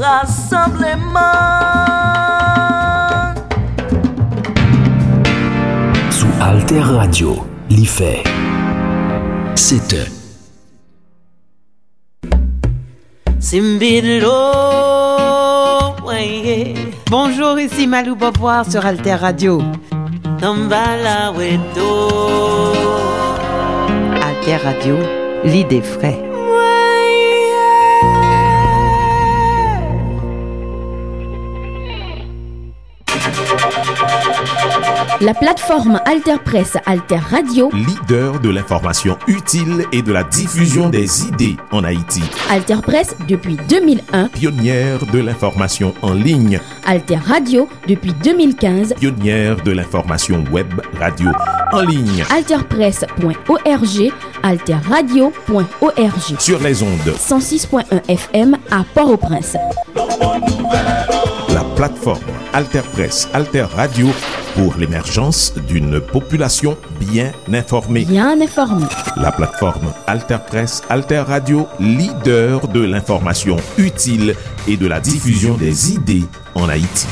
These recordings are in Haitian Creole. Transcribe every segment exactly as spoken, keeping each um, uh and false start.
Rasanbleman. Sou Alter Radio, li fè sèt è. Simbidlo, weye. Bonjour, ici Malou Beauvoir sur Alter Radio. Tambala weto. Alter Radio, l'idée vraie. La plateforme Alter Presse, Alter Radio. Leader de l'information utile et de la diffusion des idées en Haïti. Alter Presse depuis deux mille un. Pionnière de l'information en ligne. Alter Radio depuis deux mille quinze. Pionnière de l'information web radio en ligne. Alter Presse point O R G, Alter Radio point O R G. Sur les ondes. Cent six point un F M à Port-au-Prince. La plateforme Alter Presse, Alter Radio pour l'émergence d'une population bien informée. Bien informée. La plateforme Alter Presse, Alter Radio, leader de l'information utile et de la diffusion des idées en Haïti.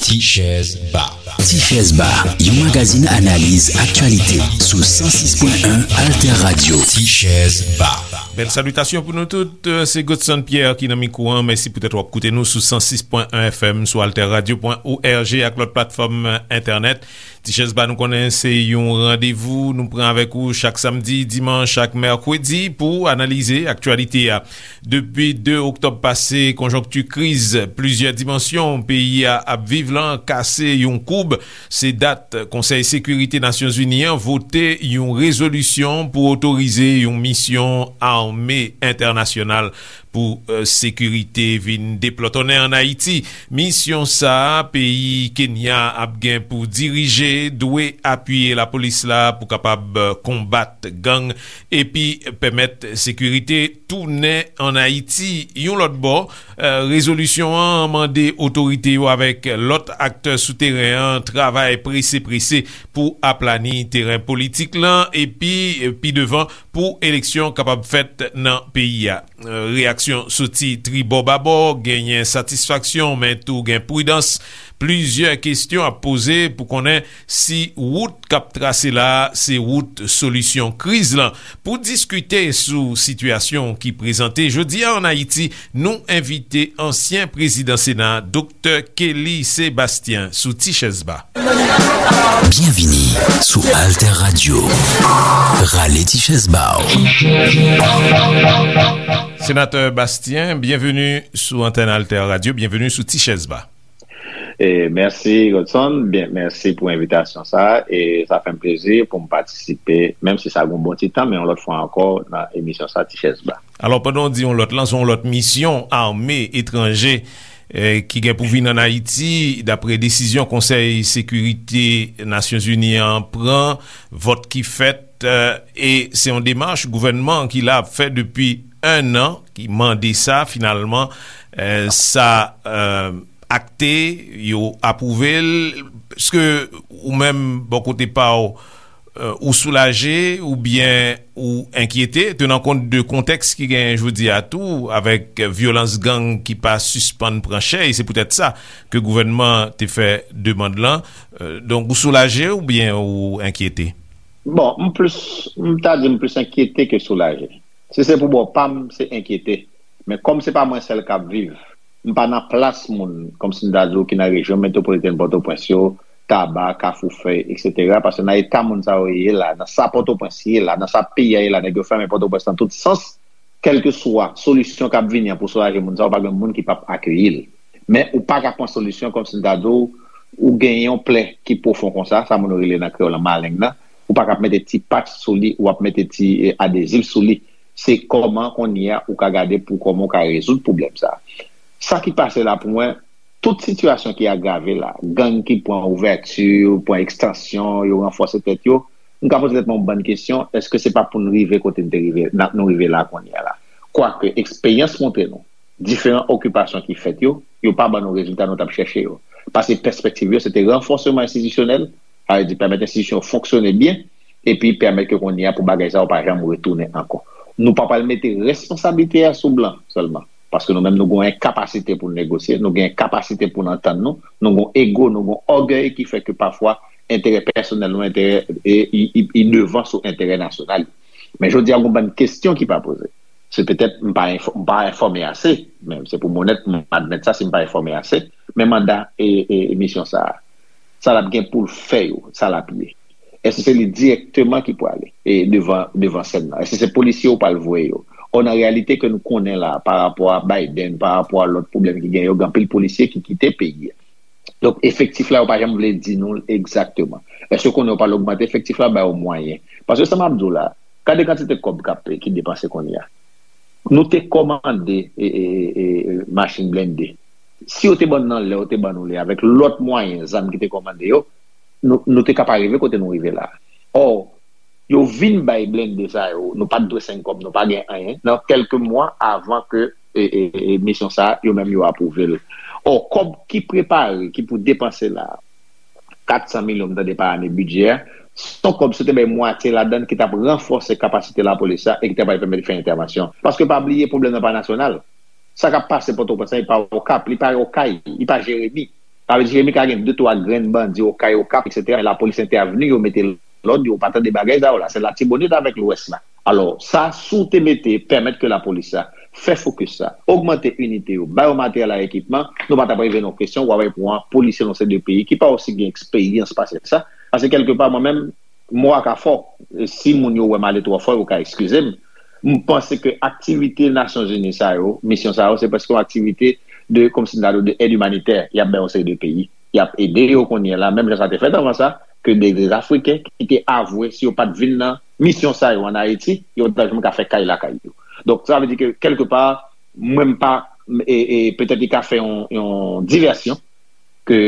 Ti Chèz Ba. Ti Chèz Ba, yon magazin analiz aktyalite sou san sis pwen en Alter Radio. Ti Chèz Ba. Bèl salitasyon pou nou tout. Se Godson Pierre ki nan mikwo an. Mèsi poutèt w ap koute nou sou san sis pwen en F M, sou alter radio pwen O R G ak lòt platfòm entènèt. Ti Chèz Ba, nou konnen se yon randevou nou pran avèk ou chak samdi, dimanch ak mèkredi pou analize aktyalite a. Depi de oktòb pase, konjonkti kriz plizyè dimansyon peyi a ap viv lan kase yon koub. Se dat Konsèy Sekirite Nasyonzini an vote yon rezolisyon pou otorize yon misyon ame entènasyonal pou, eh, sekirite vin deplòtonnen ann Ayiti. Misyon sa a, peyi Kenya ap gen pou dirije, dwe apiye lapolis la pou kapab, eh, konbat gang epi pèmèt sekirite tounen ann Ayiti. Yon lòt bò, eh, rezolisyon an mande otorite yo avèk lòt aktè sou teren an travay prese prese pou aplani teren politik lan epi, eh, pi devan pou eleksyon kapab fèt nan peyi a. Eh, reyaksyon soti tribò babò, genyen satisfaksyon, men tou gen pridans. Plizyè kesyon ap poze pou konnen si wout k ap trase la a se wout solisyon kriz lan. Pou diskite sou sitiyasyon ki prezante jodi a ann Ayiti, nou envite ansyen prezidan Sena, Doktè Kelly Sebastien, sou Ti Chèz Ba. Byenvini sou Alter Radio. Rale Ti Chèz Ba w. Senatè Bastien, byenveni sou antèn Alter Radio, byenveni sou Ti Chèz Ba. E mèsi, Godson. Byen, mèsi pou envitasyon sa a. E sa fè m plezi pou m patisipe, menm si sa gen yon bon ti tan, men yon lòt fwa ankò nan emisyon sa, Ti Chèz Ba. Alò, pandan w di yon lòt lan, se yon lòt misyon ame etranje, eh, ki gen pou vin ann Ayiti, dapre desizyon Konsèy Sekirite Nasyonzini an pran, vòt ki fèt, eh, e se yon demach gouvènman ki la ap fè depi en an, ki mande sa, finalman, eh, sa, eh, akte, yo apwouve l. Èske ou menm, bò kote pa w, eh, ou soulaje oubyen ou enkyete, tenan kont de kontèks ki genyen jodi a tou, avèk vyolans gang ki pa sispann pran chè, e se poutèt sa ke gouvènman te fè demann lan. Eh, donk, ou soulaje oubyen ou enkyete? Bon, m plis, m ta di m plis enkyete ke soulaje. Si se pou bò pa m, se enkyete. Men kòm se pa mwen sèl k ap viv, m pa nan plas moun, kòmsi m ta di w, ki nan rejyon metwopolitèn Pòtoprens yo, Taba, Kafou Fèy, etsetera. Paske nan eta moun sa yo ye la, nan sa Pòtoprens ye la, nan sa peyi a ye la, nèg yo fèmen Pòtoprens nan tout sans, kèlkeswa solisyon k ap vini an pou soulaje moun sa yo, pa gen moun ki p ap akeyi l. Men ou pa ka pran solisyon kòmsi m ta di w, ou gen yon plè ki pwofon konsa, sa moun yo rele nan kreyòl lan maleng nan, ou pa ka ap mete ti patch sou li, ou ap mete ti, eh, adezif sou li. Se kòman kounye a ou ka gade pou kòman ou ka rezoud pwoblèm sa a. Sa ki pase la pou mwen, tout sitiyasyon ki agrave la, gang ki pran ouvèti, pran ekstansyon, yo ranfòse tèt yo, m ka poze tèt mwen yon bann kesyon, èske se pa pou n rive kote n te rive, n ap, nou rive la kounye a la? Kwake, eksperyans montre nou, diferan okipasyon ki fèt yo, yo pa ban nou rezilta nou t ap chèche yo. Paske pèspektiv yo, se te ranfòsman enstitisyonèl, sa vle di pèmèt enstitisyon yo fonksyone byen, epi pèmèt ke kounye a pou bagay sa yo pa janm retounen ankò. Nou pa pral mete responsablite a sou blan sèlman, paske nou menm nou gen yon kapasite pou n negosye, nou gen kapasite pou n antann nou, nou gen ego, nou gen ògèy ki fè ke pafwa enterè pèsonèl nou, enterè e, i, i, i devan sou enterè nasyonal. Men jodi a, gen yon bann kesyon ki pa poze. Se petèt m pa enfò- m pa enfòme ase, men se pou m onèt, m admèt sa si m pa enfòme ase. Men manda e, e, e misyon sa a, sa l ap gen pou l fè yo, sa l ap ye. Èske se li dirèkteman ki pwale e devan, devan sèn nan? Èske se polisye yo pral voye yo? Ò, nan reyalite ke nou konnen la, pa rapò a Biden, pa rapò a lòt pwoblèm ki gen yo, gen anpil polisye ki kite peyi a. Donk, efektif la, yo pa janm vle di nou egzakteman. Èske konnen yo pral ogmante efektif la, ba yo mwayen? Paske sa m ap di w la, gade kantite kòb k ap, ki depanse kounye a. Nou te kòmande e, e, e, e, machin blende. Si yo te ban n nan lè, yo te ban nou li avèk lòt mwayen, zam ki te kòmande yo, nou, nou te ka pa rive kote nou rive la. Ò, yo vin bay blende sa yo, nou pa t dwe senk kòb, nou pa gen anyen, nan kèlke mwa avan ke e, e, e, misyon sa a, yo menm yo apwouve l. Ò, kòb ki prepare, ki pou depanse la, kat san milyon, m tande pa ane bidjè a, se yon kòb si yo te bay mwatye ladan l ki t ap ranfòse kapasite lapolis la e ki t ap pèmèt fè entèvansyon. Paske pa bliye, pwoblèm nan pa nasyonal. Sa k ap pase Pòtoprens lan, li pa Okap, li pa Okay, li pa Jeremi. Sa vle di Jeremi ka gen de twa grenn bandi, Okay, Okap, etsetera, men lapolis entèvni, yo mete lòd, yo pa tande bagay sa yo la. Se Latibonit avèk Lwès la. Alò, sa, si w te mete, pèmèt ke lapolis la fè fokis sa, ogmante inite yo, ba yo materyèl ak ekipman, nou pa t ap rive nan kesyon, w ap pran polisye nan se de peyi ki pa osi gen eksperyans pase sa. Paske kèlkepa, mwen menm, mo a ka fò. Si moun yo wè m ale twò fò, yo ka eskize m. M panse ke aktivite Nasyonzini sa yo, misyon sa yo, se prèske yon aktivite de, kòmsi m ta di w, de èd imanitè y ap bay yon seri de peyi. Y ap ede yo kounye a la, menm jan sa te fèt anvan sa, ke de, de Afriken ki te avwe, si yo pa t vin nan misyon sa yo ann Ayiti, yo pa t janm ka fè kay lakay yo. Donk, sa vle di ke, kèlkepa, mwen m pa, e, e, petèt li ka fè yon, yon divèsyon, ke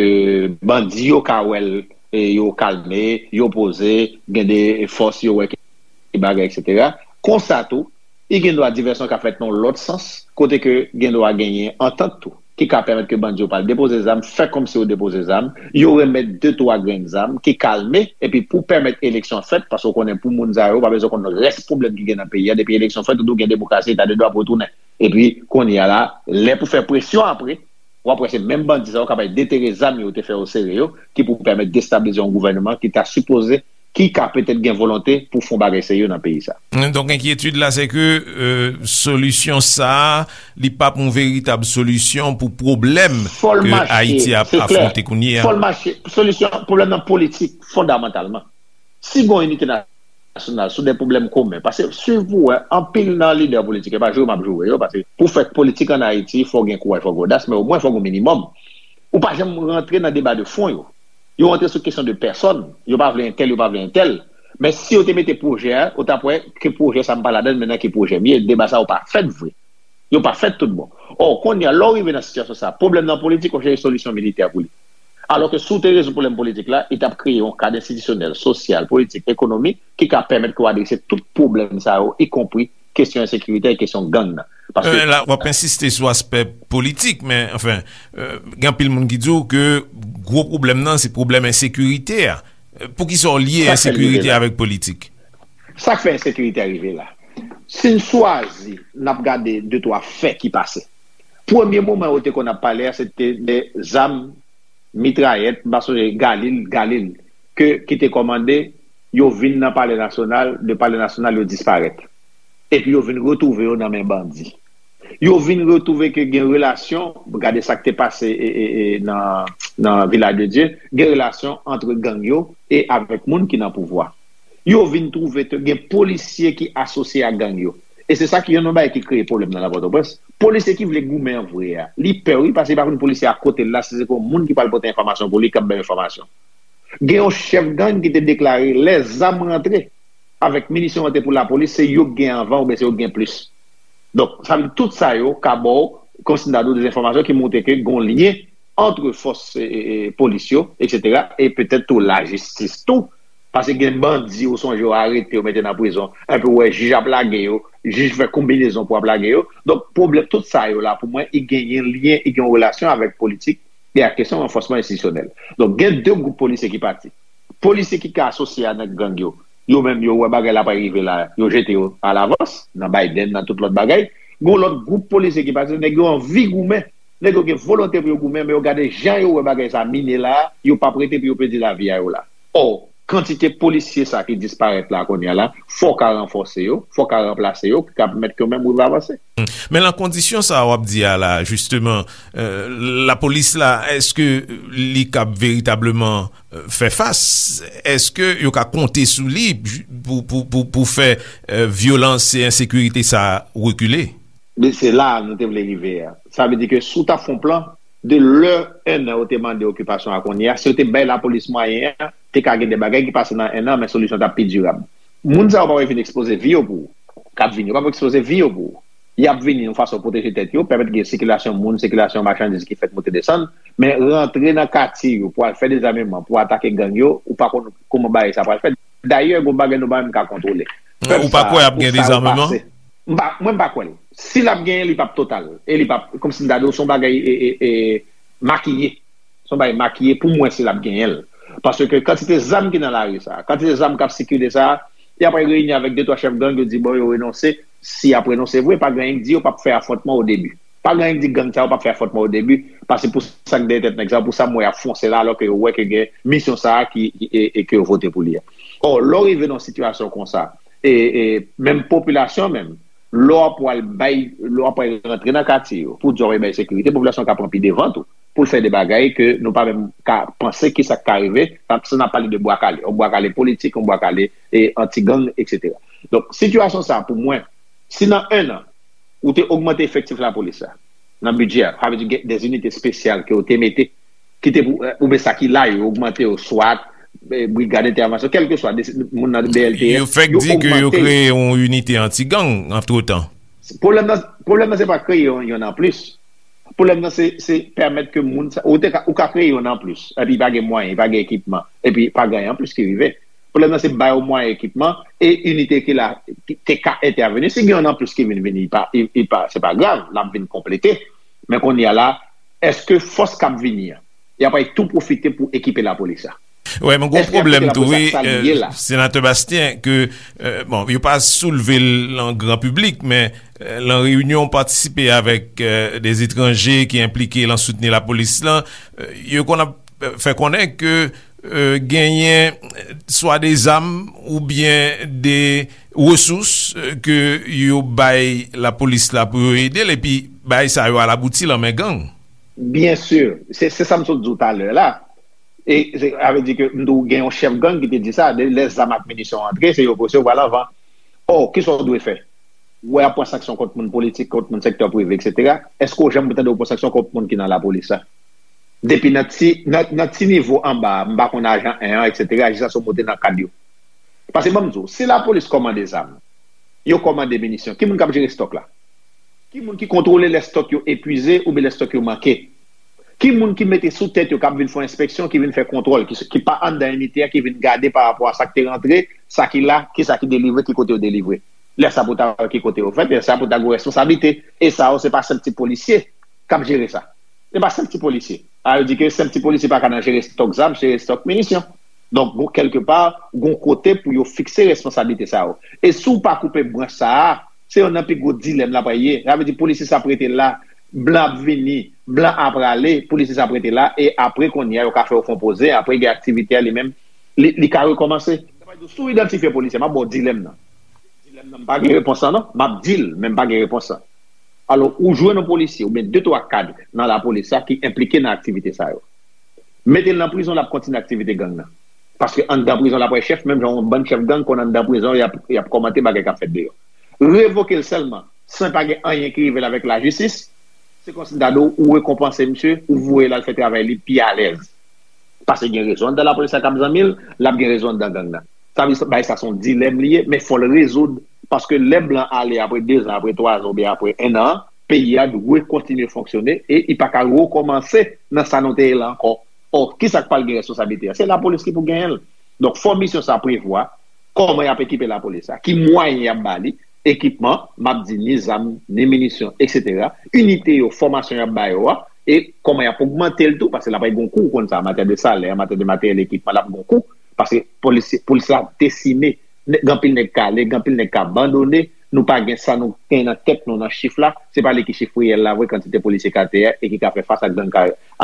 bandi yo ka wè l, e, yo kalme, yo poze, gen de fòs yo wè ki bagay, etsetera. Konsa tou, i gen dwa divèsyon ka fèt nan lòt sans, kote ke gen dwa genyen antant tou, ki ka pèmèt ke bandi yo pral depoze zam, fè kòmsi yo depoze zam, yo remèt de twa grenn zam ki kalme, epi pou pèmèt eleksyon fèt, paske w konnen pou moun sa yo, pa bezwen konn rès pwoblèm ki gen nan peyi a, depi eleksyon fèt, ou tou gen demokrasi, eta de dwa pou retounen. Epi, kounye a la, lè pou fè presyon apre, w ap wè se menm bandi sa yo k ap al detere zam yo te fè yo sere yo, ki pou pèmèt destabilize yon gouvènman ki ta sipoze, ki ka petèt gen volonte pou fè yon bagay serye nan peyi sa. Donk, enkyetid la, se ke, euh, solisyon sa a, li p ap yon veritab solisyon pou pwoblèm ke Ayiti ap afwonte kounye a. Fò l mache. Solisyon pwoblèm nan politik, fondamantalman. Si gen yon inite nasyonal sou de pwoblèm komen, paske swiv pou wè, anpil nan lidè politik, e pa joure m ap joure yo, paske pou fè politik ann Ayiti, fò gen kouraj, fò gen odas, men omwen fò gen minimòm. Ou pa janm rantre nan deba de fon yo. Yo rantre sou kesyon de pèsòn. Yo pa vle entèl, yo pa vle entèl. Men si yo te mete pwojè a, ou t ap wè ke pwojè sa m pa ladan l, men nan ki pwojè m ye, deba sa yo pa fèt vre. Yo pa fèt tout bon. Ò, kounye a, lè w rive nan sitiyasyon sa, pwoblèm nan politik, ou chèche solisyon militè pou li. Alò ke si w te rezoud pwoblèm politik la, li t ap kreye yon kad enstitisyonèl, sosyal, politik, ekonomik, ki ka pèmèt ke w adrese tout pwoblèm sa yo, ikonpri kesyon ensekirite e kesyon gang nan. Paske... Euh, la, w ap ensiste sou aspè politik, men, anfen, euh, gen anpil moun ki di w ke gwo pwoblèm nan, se pwoblèm ensekirite a. Euh, poukisa w lye ensekirite avèk politik? Sa k fè ensekirite a rive la. Si n swazi, n ap gade de twa fè ki pase. Premye moman yo te konn ap pale a, se te de zam, mitrayèt, m pa sonje, Galil, Galil, ke, ki te kòmande, yo vin nan Palè Nasyonal, de Palè Nasyonal, yo disparèt. Epi yo vin retwouve yo nan men bandi. Yo vin retwouve ke gen relasyon, gade sa k te pase, e, e, e, nan, nan Vilaj de Dye, gen relasyon ant gang yo e avèk moun ki nan pouvwa. Yo vin twouve ke gen polisye ki asosye ak gang yo. E se sa ki youn nan bagay ki kreye pwoblèm nan la Pòtoprens. Polisye ki vle goumen an vre a, li pè wi, paske li pa konn polisye a kote l la, si se pou yon moun ki pral pote enfòmasyon pou li, k ap bay enfòmasyon. Gen yon chèf gang ki te deklare lè zam rantre avèk minisyon rantre pou lapolis, se yo k gen anvan oubyen se yo k gen plis. Donk, sa vle di tout sa yo ka ba w, kòmsi m ta di w, de enfòmasyon ki montre ke gen yon lyen ant fòs, e, e, e, polis yo, etsetera, e petèt tou lajistis tou. Paske gen bandi, ou sonje, yo arete, yo mete nan prizon. Epi ou wè jij ap lage yo, jij fè konbinezon pou ap lage yo. Donk, pwoblèm, tout sa yo la, pou mwen, i genyen lyen, i gen yon relasyon avèk politik. E a kesyon ranfòsman enstitisyonèl. Donk, gen de gwoup polisye ki pati. Polisye ki ka asosye a nèg gang yo, yo menm yo wè bagay la pa rive la, yo jete yo alavans, nan Biden, nan tout lòt bagay. Gen yon lòt gwoup polisye ki pati, nèg yo anvi goumen. Nèg yo gen volonte pou yo goumen, men yo gade jan yo wè bagay sa mine la, yo p ap rete pou yo pèdi lavi a yo la. Ò, kantite polisye sa ki disparèt la kounye a la, fò w ka ranfòse yo, fò w ka ranplase yo, ki ka pèmèt ke yo menm rive avanse. Men nan kondisyon sa w ap di a la, jisteman, euh, lapolis la, èske li kab veritableman, euh, fè fas? Èske yo ka konte sou li pou, pou, pou, pou fè, euh, vyolans e ensekirite sa rekile? Men se la nou te vle rive a. Sa vle di ke si w ta fè yon plan, de lè en an yo te mande okipasyon a kounye a, si yo te bay lapolis mwayen an, te ka gen de bagay ki pase nan en an, men solisyon t ap pi dirab. Moun sa yo pa wè vin ekspoze vi yo pou ou. K ap vini, yo p ap ekspoze vi yo pou ou. Y ap vini yon fason pwoteje tèt yo, pèmèt gen sikilasyon moun, sikilasyon machandiz ki fèt monte desann, men rantre nan katye yo pou al fè dezameman, pou atake gang yo, ou pa konn kòman bagay sa pral fèt. Dayè, gon bagay nou pa menm ka kontwole. Pèp Ou pa sa, kwè ap pou gen sa yo dezameman? pase. M pa, mwen m pa kwè l. Si l ap genyen, li p ap total. E li p ap, kòmsi m ta di w, se yon bagay e, e, e, makiye. Se yon bagay makiye pou mwen si l ap genyen l. Paske kantite zam ki nan lari sa, kantite zam k ap sikile sa, y ap reyini avèk de twa chèf gang, yo di bon, yo renonse. Si y ap renonse vre, pa gen anyen k di yo p ap fè afwontman o debi. Pa gen anyen k di gang sa yo p ap fè afwontman o debi, paske pou sa k dèyè tèt nèg sa yo, pou sa m wè y ap fonse la, alò ke yo wè ke gen misyon sa a ki, ki- e, e ke yo vote pou li a. Ò, lè w rive nan yon sitiyasyon konsa, e, e menm popilasyon menm, lè w ap pral bay, lè w ap pral rantre nan katye yo, pou di w ap bay sekirite, popilasyon ka pran pi devan tou, pou l fè de bagay ke nou pa menm ka panse ki sa k ka rive, sa n ap pale de bwa kale, yon bwa kale politik, yon bwa kale e anti-gang, etsetera. Donk, sitiyasyon sa a, pou mwen, si nan en an, ou te ogmante efektif lapolis la, nan bidjè a, sa vle di gen de zinite espesyal ke ou te mete, ki te pou, oubyen sa ki la, yo ogmante yo, swat, eh, brigad entèvansyon, kèlkeswa, de, moun nan B L T S, Yo fèk yo di ke yo ogmante. kreye yon inite anti-gang antretan. Pwoblèm nan, pwoblèm nan se pa kreye yon, yon anplis. Pwoblèm nan se, se pèmèt ke moun sa, ou te ka, ou ka kreye yon anplis, epi pa gen mwayen, pa gen ekipman, epi pa gen anyen anplis ki rive. Pwoblèm nan se ba yo mwayen, ekipman, e inite ki la, ki te ka entèveni. Si gen yon anplis ki vin vini, li pa, li, li pa, se pa grav, l ap vin konplete. Men kounye a la, èske fòs k ap vini an, y ap tou pwofite pou ekipe lapolis la? Wè, men gwo Èske y ap pwoblèm kite tou, lapolis wi, ak sa li ye euh, la? Senatè Bastien, ke, euh, bon, yo pa soulve l an gran piblik, men, euh, lan reyinyon patisipe avèk, euh, de etranje ki enplike lan soutni lapolis lan, euh, yo konn ap, euh, fè konnen ke, euh, genyen, euh, swa de zam oubyen de resous, euh, ke yo bay lapolis la pou yo ede l, epi bagay sa yo al abouti lan men gang. Byen si, se, se sa m sot di w talè la. E se, sa vle di ke m di w gen yon chèf gang ki te di sa, de, lè zam ak minisyon antre, se yo pou resevwa l anvan. Ò, kisa w dwe fè? Ou wè y ap pran sanksyon kont moun politik, kont moun sektè prive, etsetera. Èske w janm tande yo pran sanksyon kont moun ki nan lapolis la? Depi nan ti, nan, nan ti nivo anba a, m pa konn ajan en an, etsetera, jiskaske w monte nan kad yo. Paske ban m di w, si lapolis kòmande zam, yo kòmande minisyon, ki moun k ap jere stòk la? Ki moun ki kontwole lè stòk yo epwize oubyen lè stòk yo manke? Ki moun ki mete sou tèt yo, k ap vin fè enspeksyon, ki vin fè kontwòl, ki, ki pa anndan inite a, ki vin gade pa rapò a sa k te rantre, sa ki la, kisa ki delivre, ki kote yo delivre? Lè sa pou ta wè ki kote yo fèt, lè sa pou ta gen responsablite. E sa yo, se pa senp ti polisye k ap jere sa. Se pa senp ti polisye. A, yo di ke senp ti polisye pa ka nan jere stòk zam, jere stòk minisyon. Donk, gon, kèlkepa, gon kote pou yo fikse responsablite sa yo. E si w pa koupe branch sa a, se youn nan pi gwo dilèm la pral ye. Sa vle di polisye sa ap rete la, blan ap vini, blan ap prale, polisye sa ap rete la, e apre kounye a, yo ka fè yo fè yon poze, apre gen aktivite a li menm, li, li ka rekòmanse. Si w idantifye polisye, m ap ba w dilèm nan. Dilèm nan, m pa gen repons lan non, m ap di l, men m pa gen repons lan. Alò, ou jwenn yon polisye oubyen de twa kad nan lapolis la ki enplike nan aktivite sa yo. Mete l nan prizon, l ap kontinye aktivite gang nan. Paske anndan prizon l ap wè chèf, menm jan yon bann chèf gang konn anndan prizon, y ap, y ap kòmante bagay k ap fèt deyò. Revoke l sèlman, san pa gen anyen ki rive l avèk lajistis, se kòmsi m ta di w, ou rekonpanse misye, ou voye l al fè travay li pi alèz. Paske gen rezo anndan lapolis la k ap zanmi l, l ap gen rezo anndan gang nan. Sa vle di, bagay sa se yon dilèm li ye, men fò l rezoud, paske lè blan ale apre dezan, apre twazan oubyen apre en an, peyi a dwe kontinye fonksyone e li pa ka rekòmanse nan sa nou te ye la ankò. Ò, kisa k pral gen responsablite a? Se lapolis ki pou genyen l. Donk, fò misyon sa prevwa kòman y ap ekipe lapolis la, ki mwayen y ap ba li, ekipman, m ap di ni zam, ni minisyon, etsetera. Inite yo, fòmasyon y ap ba yo a, E kòman y ap ogmante l tou, paske l ap gen yon kou, ou konn sa, an matyè de salè, an matyè de materyèl, ekipman, l ap gen yon kou, paske polis, polis la desime. Gen anpil nèg k ale, gen anpil nèg k abandone, nou pa gen sa nou gen nan tèt nou nan chif la, se pa li ki chif reyèl la vre, kantite polisye k atè a e ki ka fè fas ak gang,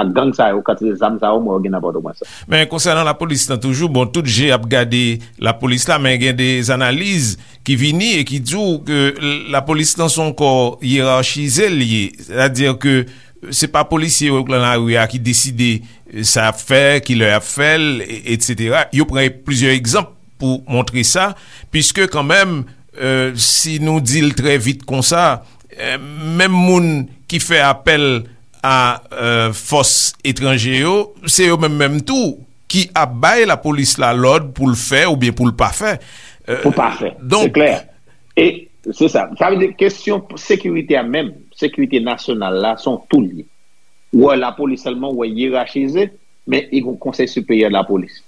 ak gang sa yo, kantite zam sa yo, mwen, yo gen nan Pòtoprens. Men konsènan lapolis lan toujou, bon, tout je ap gade lapolis la, men gen de analiz ki vini e ki di w ke lapolis lan se yon kò yerachize l ye. Sètadi ke se pa polisye yo k nan lari a ki deside sa y ap fè, kilè y ap fè l, e- etsetera. Yo pran plizyè egzanp pou montre sa, piske kanmenm, euh, si nou di l trè vit konsa, euh, menm moun ki fè apèl a euh, fòs etranje yo, se yo menm menm tou ki ap bay lapolis la lòd pou l fè oubyen pou l pa fè. Euh, Pou pa fè. Se donk, klè. E se sa. Sa vle di kesyon sekirite a menm, sekirite nasyonal la, se yon tou li ye. Ou wè lapolis sèlman, ou wè yerachize, men li gen yon konsèy siperyè lapolis.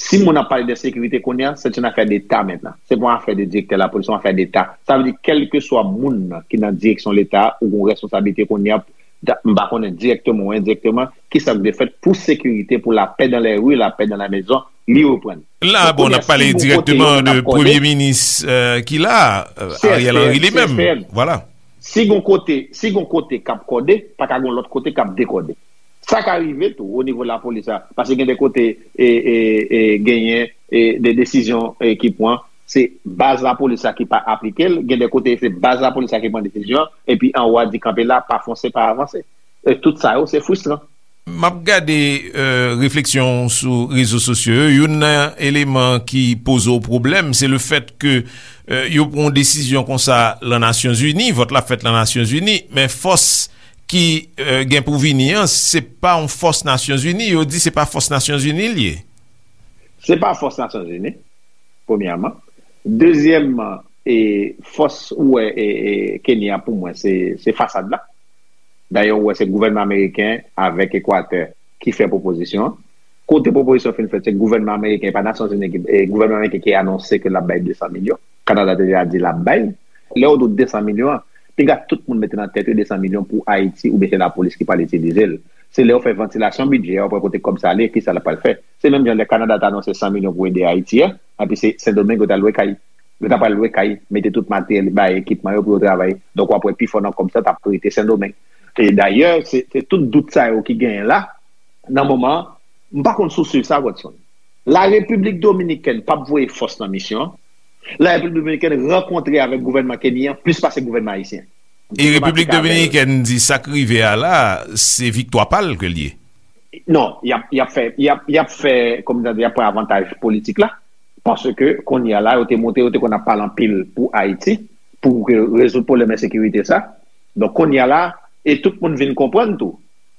Si moun ap pale de sekirite kounye a, se yon afè deta mentnan. Se pa yon afè de direktè lapolis, se yon afè deta. Sa vle di, kèlkeswa moun nan ki nan direksyon leta ou gen responsablite kounye a, da- m pa konnen direkteman ou endirekteman, ki sa k dwe fèt pou sekirite, pou la paix dans les rues, la paix dans la maison, li reprann. La, bon, n ap pale direkteman de premye minis euh, ki la, euh, Ariel Henry li menm. Vwala. Si gon kote, si gon kote k ap kòde, pa ka gon lòt kote k ap dekòde. Sa ka rive tou o nivo lapolis la, paske gen de kote e, e, e, genyen e, de desizyon e, ki pran, se baz lapolis la ki pa aplike l, gen de kote se baz lapolis la ki pran desizyon, epi anwo a di kanpe la, pa fonse, pa avanse. E tout sa yo, se fristran. M ap gade euh, refleksyon w sou rezo sosyo yo. Youn nan eleman ki poze w pwoblèm, se le fèt ke euh, yo pran yon desizyon konsa lan Nasyonzini, vòt la fèt lan Nasyonzini, men fòs ki euh, gen pou vini an, se pa yon fòs Nasyonzini. Yo di se pa fòs Nasyonzini l ye. Se pa fòs Nasyonzini, premyèman. Dezyèmman, e fòs ou wè e, e, Kenya pou mwen, se, se fasad la. Dayè, ou wè se gouvènman ameriken avèk Ekwatè ki fè pwopozisyon an. Kote pwopozisyon fin fèt, se gouvènman ameriken, e pa Nasyonzini ki, e gouvènman ameriken ki anonse ke l ap bay de san milyon. Kanada te deja di l ap bay. Lè yo di w de san milyon an, piga tout moun mete nan tèt yo de san milyon pou Ayiti oubyen se lapolis ki pral itilize l. Se lè yo fè vantilasyon bidjè a, yo pral kote kòb sa ale, kisa l pral fè. Se menm jan lè Kanada t anonse san milyon pou ede Ayiti a, epi se Sendomeng yo t al lwe kay. Yo ta pral lwe kay, mete tout materyèl, bay ekipman yo pou yo travay. Donk, w ap wè pifò nan kòb sa t ap rete Sendomeng. E dayè, se, se tout dout sa yo ki genyen la, nan moman an, m pa konn si w swiv sa, Godson. La Repiblik Dominikèn p ap voye fòs nan misyon an. La Repiblik Dominikèn rankontre avèk gouvènman kenyan plis pase gouvènman ayisyen. E Repiblik Dominikèn di sa k rive a la, se viktwa pa l ke l ye. Non, y ap, y ap fè, y ap, y ap fè, kòm sa di, y ap pran avantaj politik la. Paske kounye a la, yo te montre, yo te konn ap pale anpil pou Ayiti, pou ke rezoud pwoblèm ensekirite sa. Donk, kounye a la, e tout moun vin konprann tou,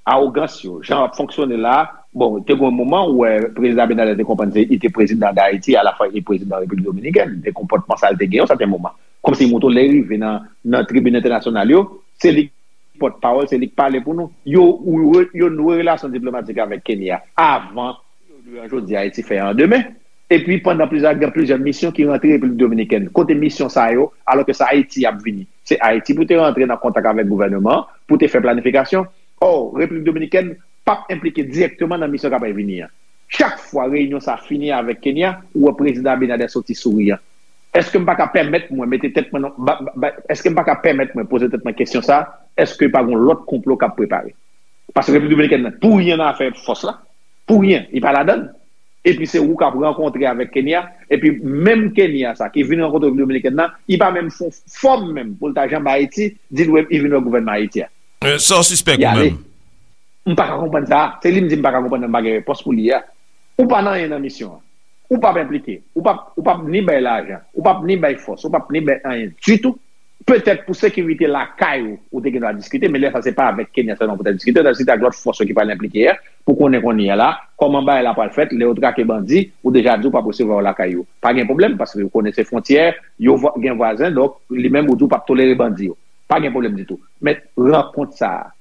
awogans yo, jan yo ap fonksyone la, bon, te gen yon moman ou wè prezidan Abinader te konprann se li te prezidan Dayiti, alafwa li te prezidan Repiblik Dominikèn, de konpòtman sa l te gen yon sèten moman. Kòmsi li montre w lè l rive nan, nan tribin entènasyonal yo, se li ki pòtpawòl, se li k pale pou nou. Yo, ou re- yo nouwe relasyon diplomatik avèk Kenya avan yo jodi Ayiti fè an demen. Epi pandan plizyè, gen plizyè misyon ki rantre Repiblik Dominikèn. Kote misyon sa yo, alò ke se Ayiti ap vini. Se Ayiti pou te rantre nan kontak avèk gouvènman an, pou te fè planifikasyon. Ò, Repiblik Dominikèn p ap enplike dirèkteman nan misyon k ap vini an. Chak fwa reyinyon sa fini avèk Kenya, ou wè prezidan Abinader soti souriyan. Èske m pa ka pèmèt mwen mete tèt mwen nan, ba, ba, ba, èske m pa ka pèmèt mwen poze tèt mwen kesyon sa, èske pa gon lòt konplo k ap prepare? Paske Repiblik Dominikèn nan, pou ryen nan afè fòs la, pou ryen, li pa ladann. Epi se ou k ap rankontre avèk Kenya, epi menm Kenya sa ki vin rankontre Repiblik Dominikèn nan, li pa menm fè fòm menm pou l ta janbe Ayiti, di l wè, li vin wè gouvènman Ayiti a. Euh, sa w sispèk ou menm? M pa ka konprann sa. Se li m di m pa ka konprann nan m pa gen repons pou li a. Ou pa nan anyen nan misyon an. Ou p ap enplike. Ou p ap, ou p ap ni bay lajan. Ou p ap ni bay fòs. Ou p ap ni bay anyen ditou. Petèt pou sekirite lakay ou, ou te gen dwa diskite, men lè sa se pa avèk Kenya sèlman pou ta diskite, ou ta diskite ak lòt fòs yo ki pral enplike a, pou konnen kounye a la, kòman bagay la pral fèt, lè yo trake bandi, ou deja di ou p ap resevwa yo lakay yo. Pa gen pwoblèm, paske yo konnen se fwontyè, yo vwa- gen vwazen, donk li menm ou di ou p ap tolere bandi yo. Pa gen pwoblèm ditou. Men rankont sa a,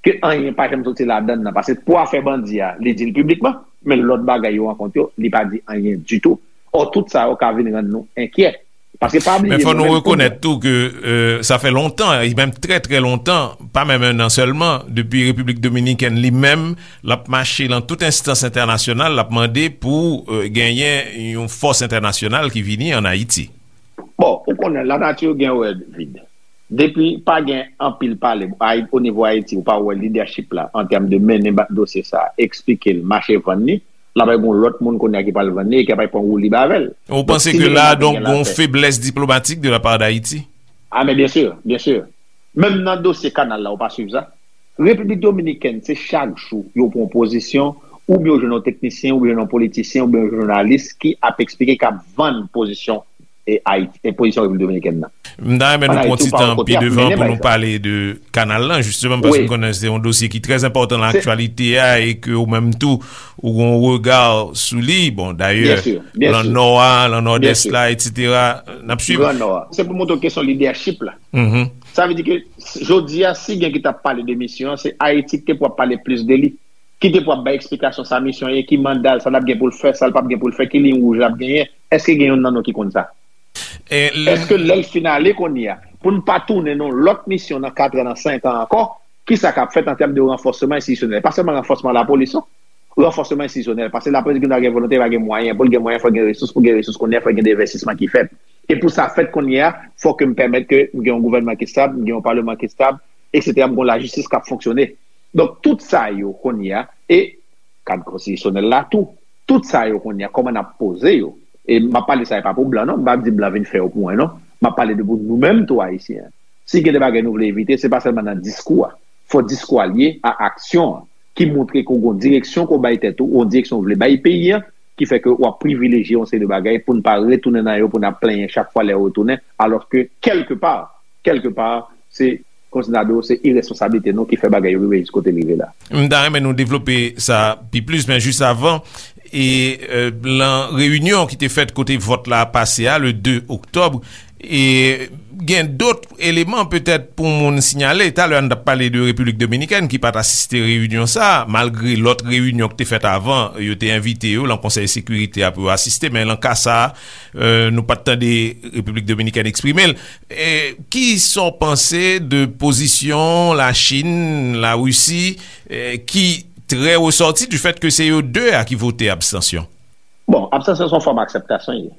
ke anyen pa janm soti ladann nan. Paske pou afè bandi a, li di l piblikman, men lòt bagay yo rankont yo, li pa di anyen ditou. Ò, tout sa yo ka vin rann nou enkyè. Paske pa bliye, men fò nou rekonèt tou ke euh, sa fè lontan, e menm trè trè lontan, pa menm en an sèlman, depi Repiblik Dominikèn li menm, l ap mache lan tout enstans entènasyonal, l ap mande pou euh, genyen yon fòs entènasyonal ki vini ann Ayiti. Bon, ou konnen lanati gen wè vid. Depi pa gen anpil pale o nivo Ayiti, ou pa wè lidèchip la an tèm de mennen dosye sa, eksplike l, mache vann li, l ap gen yon lòt moun kounye a ki pral vann li e ki ap pran woulib avè l. Ou panse ke la, donk, gen yon feblès diplomatik de la part d'Haïti? Ah, men byen si, byen si. Menm nan dosye kanal la, ou pa swiv sa? Repiblik Dominikèn, se chak jou yo pran pozisyon, oubyen yo jwenn yon teknisyen, oubyen yon politisyen, oubyen yon jounalis ki ap eksplike, k ap vann pozisyon e Ayiti, e pozisyon Repiblik Dominikèn nan. M ta renmen nou pran ti tan pi devan pou nou pale de kanal lan, jisteman, paske m konnen se yon dosye ki trè enpòtan nan aktyalite a e ke ou menm tou, ou gen yon rega sou li. Bon, dayè, lan nò a, lan nòdès la, etsetera. N ap swiv. Gran Nò a. Se pou montre w kesyon lidèchip la. Sa vle di ke jodi a, si gen ki t ap pale de misyon an, se Ayiti ki te pou ap pale plis de li. Ki te pou ap bay eksplikasyon sa misyon ye, ki manda l, sa l ap gen pou l fè, sa l p ap gen pou l fè, ki liy wouj l ap genyen. Èske gen youn nan nou ki konn sa? Èske lè l fin ale kounye a, pou n pa tounen nan yon lòt misyon nan katran, nan senkan ankò, kisa k ap fèt an tèm de ranfòsman enstitisyonèl? Pa sèlman ranfòsman lapolis non, ranfòsman enstitisyonèl, paske lapolis gen dwa gen volonte, pa gen mwayen, pou l gen mwayen, fò l gen resous, pou l gen resous kounye a, fò l gen de envèstisman ki fèt. E pou sa fèt kounye a, fò ke m pèmèt ke m gen yon gouvènman ki estab, m gen yon paleman ki estab, etsetera, m gen yon lajistis k ap fonksyone. Donk, tout sa yo kounye a, e kad konstitisyonèl la tou, tout sa yo kounye a, kòman n ap poze yo? E m ap pale sa, e pa pou blan non, m p ap di blan vin fè yo pou mwen non, m ap pale de pou nou menm tou Ayisyen. Si gen de bagay nou vle evite, se pa sèlman nan diskou a. Fò diskou a lye a aksyon an, ki montre ke w gen yon direksyon ke w bay tèt ou, yon direksyon w vle bay peyi an, ki fè ke w ap privilejye yon seri de bagay pou n pa retounen nan yo, pou n ap plenyen chak fwa lè yo retounen, alòske kèlkepa, kèlkepa, se kòmsi n ta di w, se iresponsablite nou ki fè bagay yo rive jis kote l rive la. M ta renmen nou devlope sa pi plis, men jis avan, e euh, lan reyinyon ki te fèt kote vòt la pase a, le de oktòb, e gen dòt eleman petèt pou moun siyale. Talè a n t ap pale de Repiblik Dominikèn ki pa t asiste reyinyon sa a, malgre lòt reyinyon ki te fèt avan, yo te envite yo lan Konsèy Sekirite a pou yo asiste, men lan ka sa a, euh, nou pa t tande Repiblik Dominikèn eksprime l. E, ki sa w panse de pozisyon Lachin, Larisi, e, ki trè resòti du fèt ke se yo de a ki vote abstansyon? Bon, abstansyon se yon fòm akseptasyon l ye.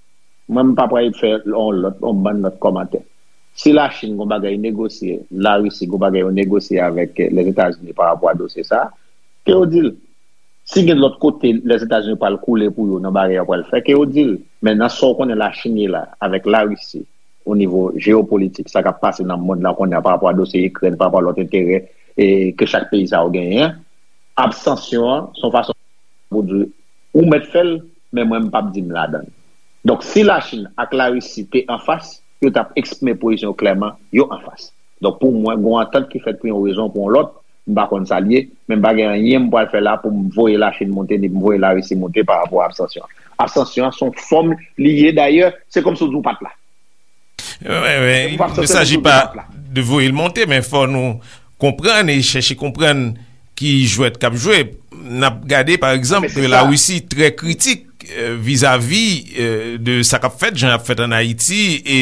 Mwen, m pa pral fè yon lòt, yon bann lòt kòmantè. Si Lachin gen yon bagay negosye, Larisi gen yon bagay yo negosye avèk Lèzetazini pa rapò a dosye sa a, ke yo di l. Si gen lòt kote Lèzetazini pral koule pou yo nan bagay yo pral fè, ke yo di l. Men nan sa w konnen Lachin ye la, avèk Larisi, o nivo jeyopolitik, sa k ap pase nan mond lan kounye a pa rapò a dosye Ikrèn, pa rapò a lòt enterè e ke chak peyi sa yo genyen an, abstansyon an se yon fason pou di ou mèt fè l, men mwen m p ap di m ladan l. Donk, si Lachin ak Larisi te anfas, yo t ap eksprime pozisyon yo klèman, yo anfas. Donk, pou mwen, gen yon antant ki fèt pou yon rezon ou pou yon lòt, m pa konn sa l ye, men m pa gen anyen m pral fè la pou m voye Lachin monte, ni pou m voye Larisi monte pa rapò a abstansyon an. Abstansyon an se yon fòm li ye, dayè, se kòmsi w di w pa t la. Il ne s'agit pas de voye l monte, men fò nou konprann e chèche konprann ki jwèt k ap jwe. N ap gade, pa egzanp, Larisi trè kritik euh, vizavi euh, de sa k ap fèt, jan y ap fèt ann Ayiti, e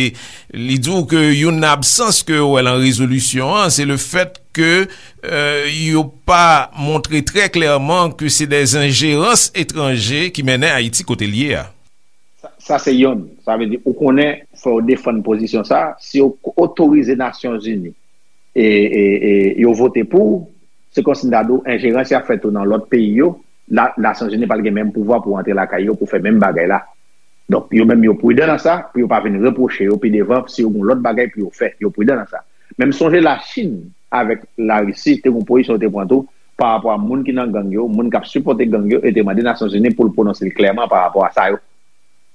li di w ke youn nan absans ke yo wè lan rezolisyon an, se le fèt ke euh, yo pa montre trè klèman ke se de enjerans etranje ki mennen Ayiti kote l ye a. Sa, sa se yonn. Sa vle di, ou konnen, fò w defann pozisyon sa. Si yo otorize Nasyonzini e, e, e yo vote pou, se kòmsi m ta di w, enjerans y ap fè tou nan lòt peyi yo, la, Nasyonzini pa t gen menm pouvwa pou antre lakay yo pou fè menm bagay la. Donk, yo menm yo pridan nan sa, pou yo pa vin repwoche yo pi devan si yo gen yon lòt bagay pou yo fè. Yo pridan nan sa. Men m sonje Lachin avèk Larisi te gen yon pozisyon yo te pran tou pa rapò a moun ki nan gang yo, moun k ap sipòte gang yo, e te mande Nasyonzini pou l pwononse l klèman pa rapò a sa yo.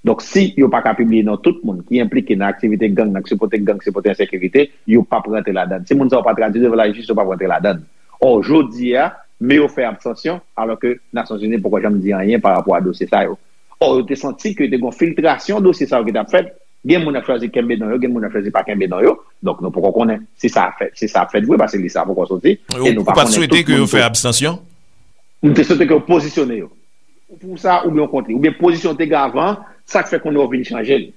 Donk, si yo pa ka pibliye non tout moun ki enplike nan aktivite gang, nan sipòte gang, sipòte ensekirite, yo p ap rantre ladan l. Si moun sa yo pa tradui devan lajistis, yo p ap rantre ladan l. Ò, jodi a, men yo fè abstansyon, alòske Nasyonzini poko janm di anyen pa rapò a dosye sa yo. Ò, yo te santi ke te gen yon filtrasyon dosye sa yo ki t ap fèt. Gen moun ap chwazi kenbe non yo, gen moun ap chwazi pa kenbe non yo. Donk, nou poko konnen si sa ap fèt, si sa ap fèt vre, paske lis la poko soti. E nou pa konnen tout moun tou. Ou pa t swete ke yo fè abstansyon? M te swete ke yo pozisyone yo. Ou pou sa, oubyen w kont li. Oubyen pozisyon w te gen avan, sa k fè kounye a w vin chanje l.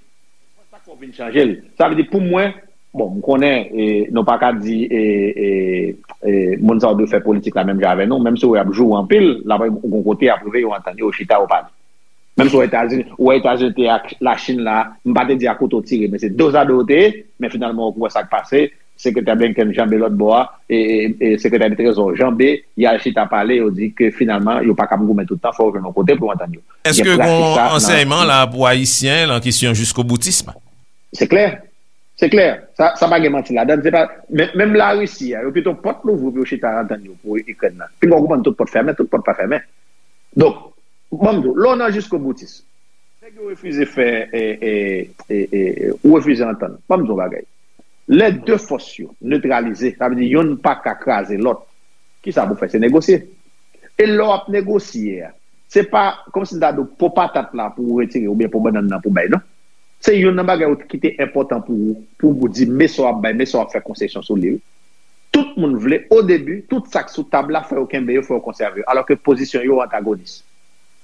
Ou vin chanje l. Sa vle di, pou mwen, bon, m konnen, e, nou pa ka di, e, e, e, moun sa yo dwe fè politik la menm jan avè nou, menm si w ap joure anpil, l ap gon kote y ap rive, yo antann yo, yo chita, yo pale. Menm si w wè Etazini, w wè Etazini te ak Lachin la, m pa te di a kouto tire, men se dozado yo te ye, men finalman, w wè sa k pase, Sekretè Blinken janbe lòt bò a, e, e, e Sekretè Trezò janbe, y al chita pale, yo di ke finalman, yo pa kab goumen tout tan, fò yo jwenn yon kote pou yo antann yo. Èske gen pratik gon sa nan ansèyman la pou Ayisyen nan kesyon jiskoboutism? Se klè. Se klè. Sa, sa pa gen manti ladan l. Se pa, men, menm Larisi a, yo kite yon pòt louvri pou yo chita antann yo pou Ikrèn nan. Pinga w konprann tout pòt fèmen, tout pòt pa fèmen. Donk, ban m di w, lè w nan jiskoboutis, nèg yo refize fè, e, e, e, e, ou refize antann. Ban m di w yon bagay. Lè de fòs yo netralize, sa vle di yonn pa ka kraze lòt. Kisa pou fè? Se negosye. E lè w ap negosye a, se pa kòmsi m ta di w po patat la pou w retire oubyen po bannann nan pou w bay, non. Se youn nan bagay ki te enpòtan pou ou, pou w di men sa w ap bay, men sa w ap fè konsesyon sou li. Tout moun vle, o debi, tout sa k sou tab la, fò yo kenbe yo, fò yo konsève yo. Alòske pozisyon yo antagonis.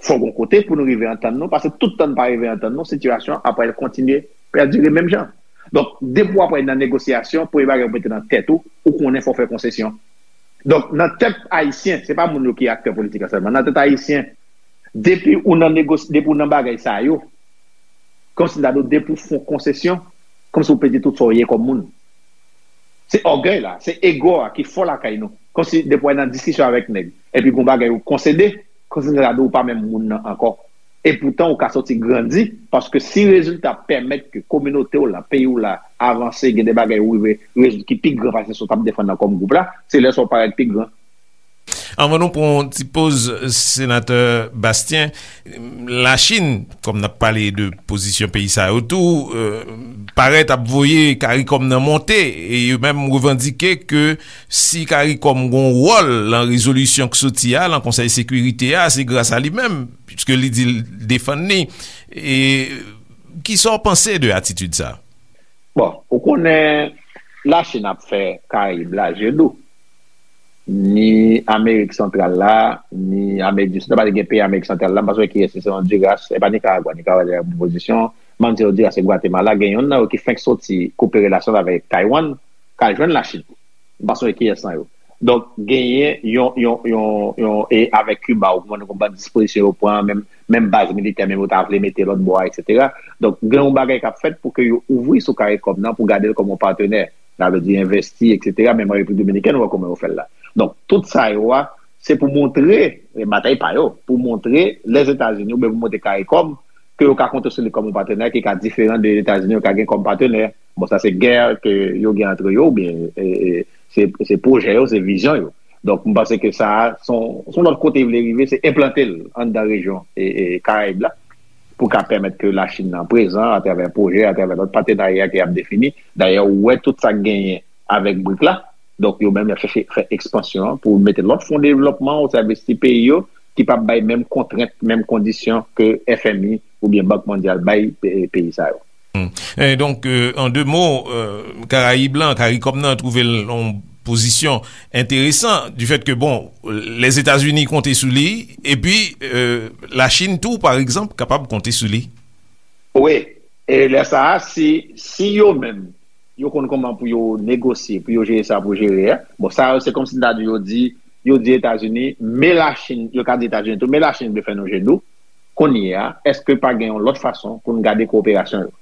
Fò gon kote pou nou rive antann nou, paske tout tan n pa rive antann nou, sitiyasyon an ap pral kontinye pèdire menm jan. Donk, depi w ap nan negosyasyon, premye bagay ou mete nan tèt ou, ou konnen fò w fè konsesyon. Donk, nan tèt ayisyen, se pa moun yo ki aktè politik la sèlman, nan tèt ayisyen, depi ou nan negos-, depi ou nan bagay sa yo, kòmsi m ta di w, depi w fè yon konsesyon, kòmsi w pèdi tout sa w ye kòm moun. Se ògèy la, se ego a ki fò lakay nou. Kòmsi depi w nan diskisyon avèk nèg, epi gon bagay ou konsede, kòmsi m ta di w pa menm moun nan ankò. Epoutan, ou ka sòti grandi, paske si rezilta pèmèt ke kominote w la, peyi w la, avanse, gen de bagay ou rive rezoud ki pi gran pase sa w t ap defann nan kòm gwoup la, se lè sa w parèt pi gran. Anvan nou pran yon ti poz, Senatè Bastien, Lachin, kòm n ap pale de pozisyon peyi sa yo tou, euh, parèt ap voye Karikòm nan monte, e yo menm revandike ke si Karikòm gon wòl nan rezolisyon k soti a, nan Konsèy Sekirite a, se gras a li menm, piske li di l defann li. E kisa w panse de atitid sa? Bon, ou konnen Lachin ap fè Karayib la je dou. Ni Amerik Santral la, ni Amerik di Sid la, pa gen peyi Amerik Santral la, m pa sonje kiyès, se Honduras, e pa Nikaragwa, Nikaragwa te nan bon pozisyon, m pa konn si Honduras e Gwatemala, gen youn nan yo ki fenk soti koupe relasyon l avèk Taiwan, k al jwenn Lachin. M pa sonje kiyès nan yo. Donk, genyen yon, yon, yon, yon, e avèk Kiba, ou konprann, konprann dispozisyon yo pran, menm, menm baz militè, menm yo ta vle mete lòt bò a, etsetera. Donk, gen yon bagay k ap fèt pou ke yo ouvri sou Karikòm nan, pou gade l kòm yon patnè. Sa vle di envesti, etsetera. Menm an Repiblik Dominikèn, ou wè kòman yo fè l la. Donk, tout sa yo a, se pou montre, e batay pa yo, pou montre Lèzetazini, oubyen pou montre Karikòm, ke yo ka konte sou li kòm yon patnè ki ka diferan de Etazini yo ka gen kòm patnè. Bon, sa se gè ke yo gen antre yo, oubyen, e, e, se, se pwojè yo, se vizyon yo. Donk, m panse ke sa a, se yon, se yon lòt kote li vle rive, se enplante l anndan rejyon, e, e, Karayib la, pou ka pèmèt ke Lachin nan prezan atravè pwojè, atravè lòt patenarya ke y ap defini. Dayè, ou wè tout sa k genyen avèk brik la. Donk, yo menm, y ap chèche fè ekspansyon an pou mete lòt fon devlòpman o sèvis ti peyi yo, ki p ap bay menm kontrent, menm kondisyon ke F M I oubyen Bank Mondyal bay pe-, peyi sa yo. Hmm. E donk, euh, an de mo, euh, Karayib lan, Karikòm nan twouve l yon pozisyon enteresan, du fait que, bon, Lèzetazini konte sou li, epi, euh, Lachin tou, pa egzanp, kapab konte sou li. Wi, e lè sa a, si, si yo menm, yo konn kòman pou yo negosye, pou yo jere sa pou jere a. Bon, sa yo, se kòmsi m ta di yo di, yo di Etazini, men Lachin, yo ka di Etazini tou, men Lachin vle fè nou je dou. Kounye a, èske pa gen yon lòt fason pou n gade kowoperasyon yo?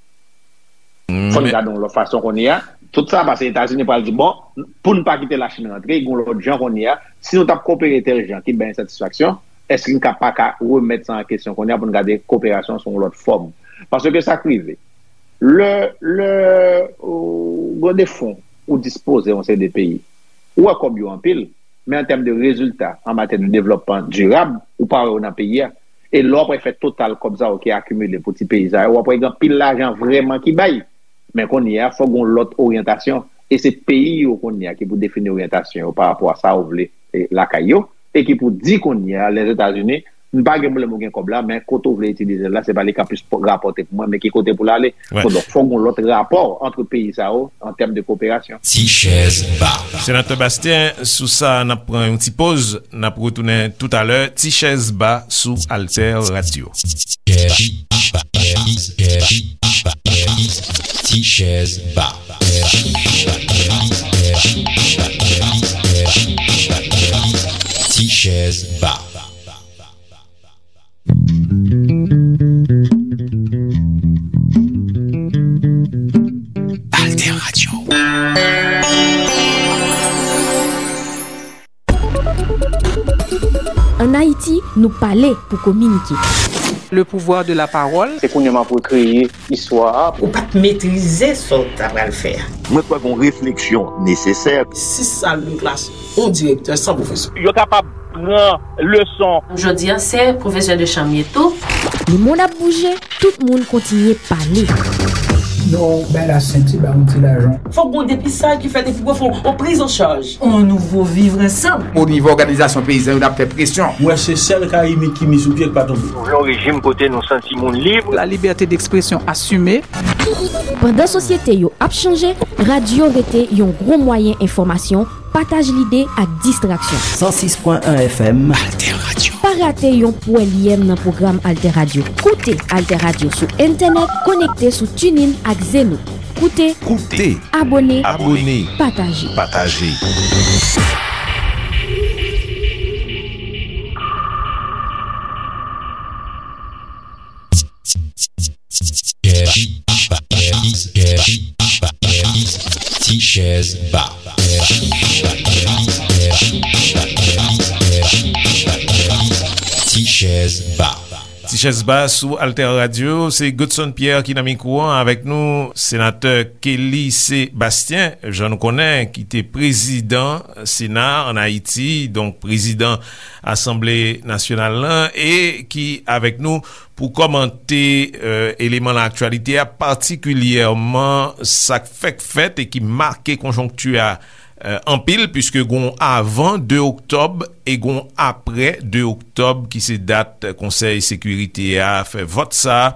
Fò n gade yon lòt fason kounye a. Tout sa pase Etazini pral di, bon, pou n pa kite Lachin rantre, gen yon lòt jan kounye a. Si nou t ap kowopere tèl jan ki bay ensatisfaksyon, èske n ka pa ka remèt sa an kesyon kounye a pou n gade kowoperasyon sou yon lòt fòm? Paske sa k rive. Lè, lè, ou gen de fon ou dispoze yon seri de peyi, ou wè kòb yo anpil, men an tèm de rezilta, an matyè de devlòpman dirab, ou pa wè yo nan peyi a. E lè w ap wè fè total kòb sa yo ki akimile pou ti peyi sa yo, w ap wè gen anpil lajan vrèman ki bay. Men kounye a, fòk gen yon lòt oryantasyon. E se peyi yo kounye a ki pou defini oryantasyon yo pa rapò a sa yo vle, e, lakay yo. E ki pou di kounye a, Lèzetazini, m pa gen pwoblèm ou gen kòb la, men kote w vle itilize l la, se pa li k ap plis rapòte pou mwen, men ki kote pou l ale. Wè. Donk, fòk gen yon lòt rapò ant peyi sa yo an tèm de koperasyon. Ti chèz ba. Senatè Bastien, sou sa, n ap pran yon ti poz, n ap retounen toutalè. Ti chèz ba sou Alter Radio. Ti chèz ba. Ti chèz ba. Ti chèz ba. Alter Radio. Ann Ayiti, nou pale pou kominike. Le pouvoir de la parole. Se kounye a m ap rekreye istwa a. Ou pa t metrize sa w ta pral fè a. Mwen kwè gon refleksyon nesesè. Sis sal de klas, yon direktè san pwofesè. Yo kapab pran leson. Jodi a, se pwofesè de chanm ye tou. Lemonn ap bouje, tout moun kontinye pale. Non, bay la senti, ba yon ti lajan. Fòk gon depistaj ki fèt epi pou fè yon priz an chaj. On nouvo vivre ensemble. O nivo òganizasyon peyizan yo, n ap fè presyon. Mwen se sèl Karibyen ki mi sou pye k pa tonbe. Nou vle yon rejim kote nou santi moun lib. La liberté d'expression assumée. Pandan sosyete yo ap chanje, radyo rete yon gwo mwayen enfòmasyon, pataj lide ak distraksyon. San sis pwen en F M. Alter Radio. Pa rate yon pwèl yèm nan pwogram Alter Radio. Koute Alter Radio sou entènèt, konekte sou TuneIn ak Zeno. Koute, koute, abòne, abòne, pataje. Pataje. Ti chèz ba. Ti chèz ba. Ti chèz ba sou Alter Radio, se Godson Pierre ki nan mikwo an avèk nou, senatè Kelly Sébastien, jan nou konnen, ki te prezidan Sena ann Ayiti, donk prezidan Asanble Nasyonal lan, e ki avèk nou pou kòmante, euh, eleman nan aktyalite a, patikilyèman sa k fèk fèt e ki make konjonkti a, euh, anpil, piske gon avan de oktòb e gon aprè de oktòb, ki se dat Konsèy Sekirite a fè vòt sa a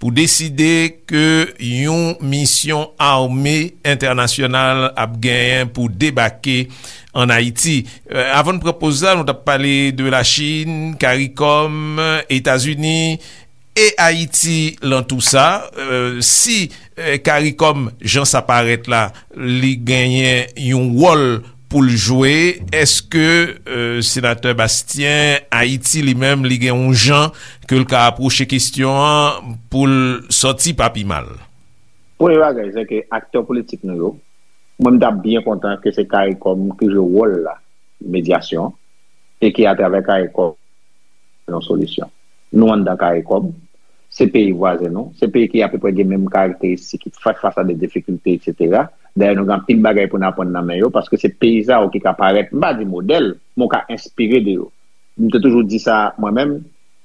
pou deside ke yon misyon ame entènasyonal ap genyen pou debake ann Ayiti. Euh, avan n pran poz la, nou t ap pale de Lachin, Karikòm, Etazini e Ayiti lan tou sa. Euh, si, euh, Karikòm, jan sa parèt la, li genyen yon wòl pou l jwe, èske, euh, senatè Bastien, Ayiti li menm, li gen yon jan ke l ka apwoche kesyon an pou l sòti pa pi mal? Premye bagay, se ke aktè politik nou yo, mwen, m t ap byen kontan ke se Karikòm ki jwe wòl la, medyasyon, e ke atravè Karikòm, yon solisyon. Nou anndan Karikòm, se peyi vwazen nou, se peyi ki apeprè gen menm karakteristik, ki fè fas a de difikilte, etsetera. Dayè, nou gen anpil bagay pou n aprann nan men yo, paske se peyi sa yo ki ka parèt, m pa di modèl, men w ka enspire de yo. M te toujou di sa mwen menm,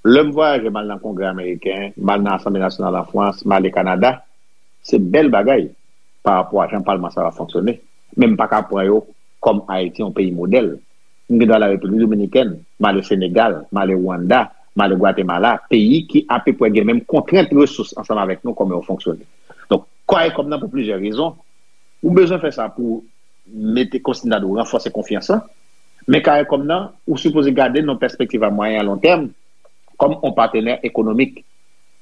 lè m vwayaje, m al nan Kongrè ameriken, m al nan Asanble Nasyonal an Frans, m ale Kanada, se bèl bagay pa rapò a jan palman sa yo ap fonksyone. Men m pa ka pran yo kòm Ayiti yon peyi modèl. M gen dwa al Repiblik Dominikèn, m ale Senegal, m ale Rwanda, m ale Gwatemala, peyi ki apeprè gen menm kontrent resous ansanm avèk nou, kòman yo fonksyone. Donk, Karikòm nan, pou plizyè rezon, ou bezwen fè sa pou mete, kòmsi m ta di w, ranfòse konfyans lan. Men Karikòm nan, ou sipoze gade nan pèspektiv a mwayen a lon tèm, kòm yon patnè ekonomik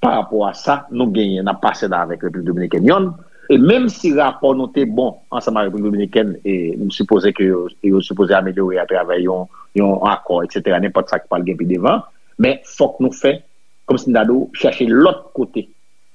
pa rapò a sa nou genyen, n ap pase la avèk Repiblik Dominikèn yonn. E menm si rapò nou te bon ansanm ak Repiblik Dominikèn, e m sipoze ke yo, yo sipoze amelyore atravè yon, yon akò, etsetera, nenpòt sa k pral gen pi devan. Men fòk nou fè, kòmsi m ta di w, chèche lòt kote,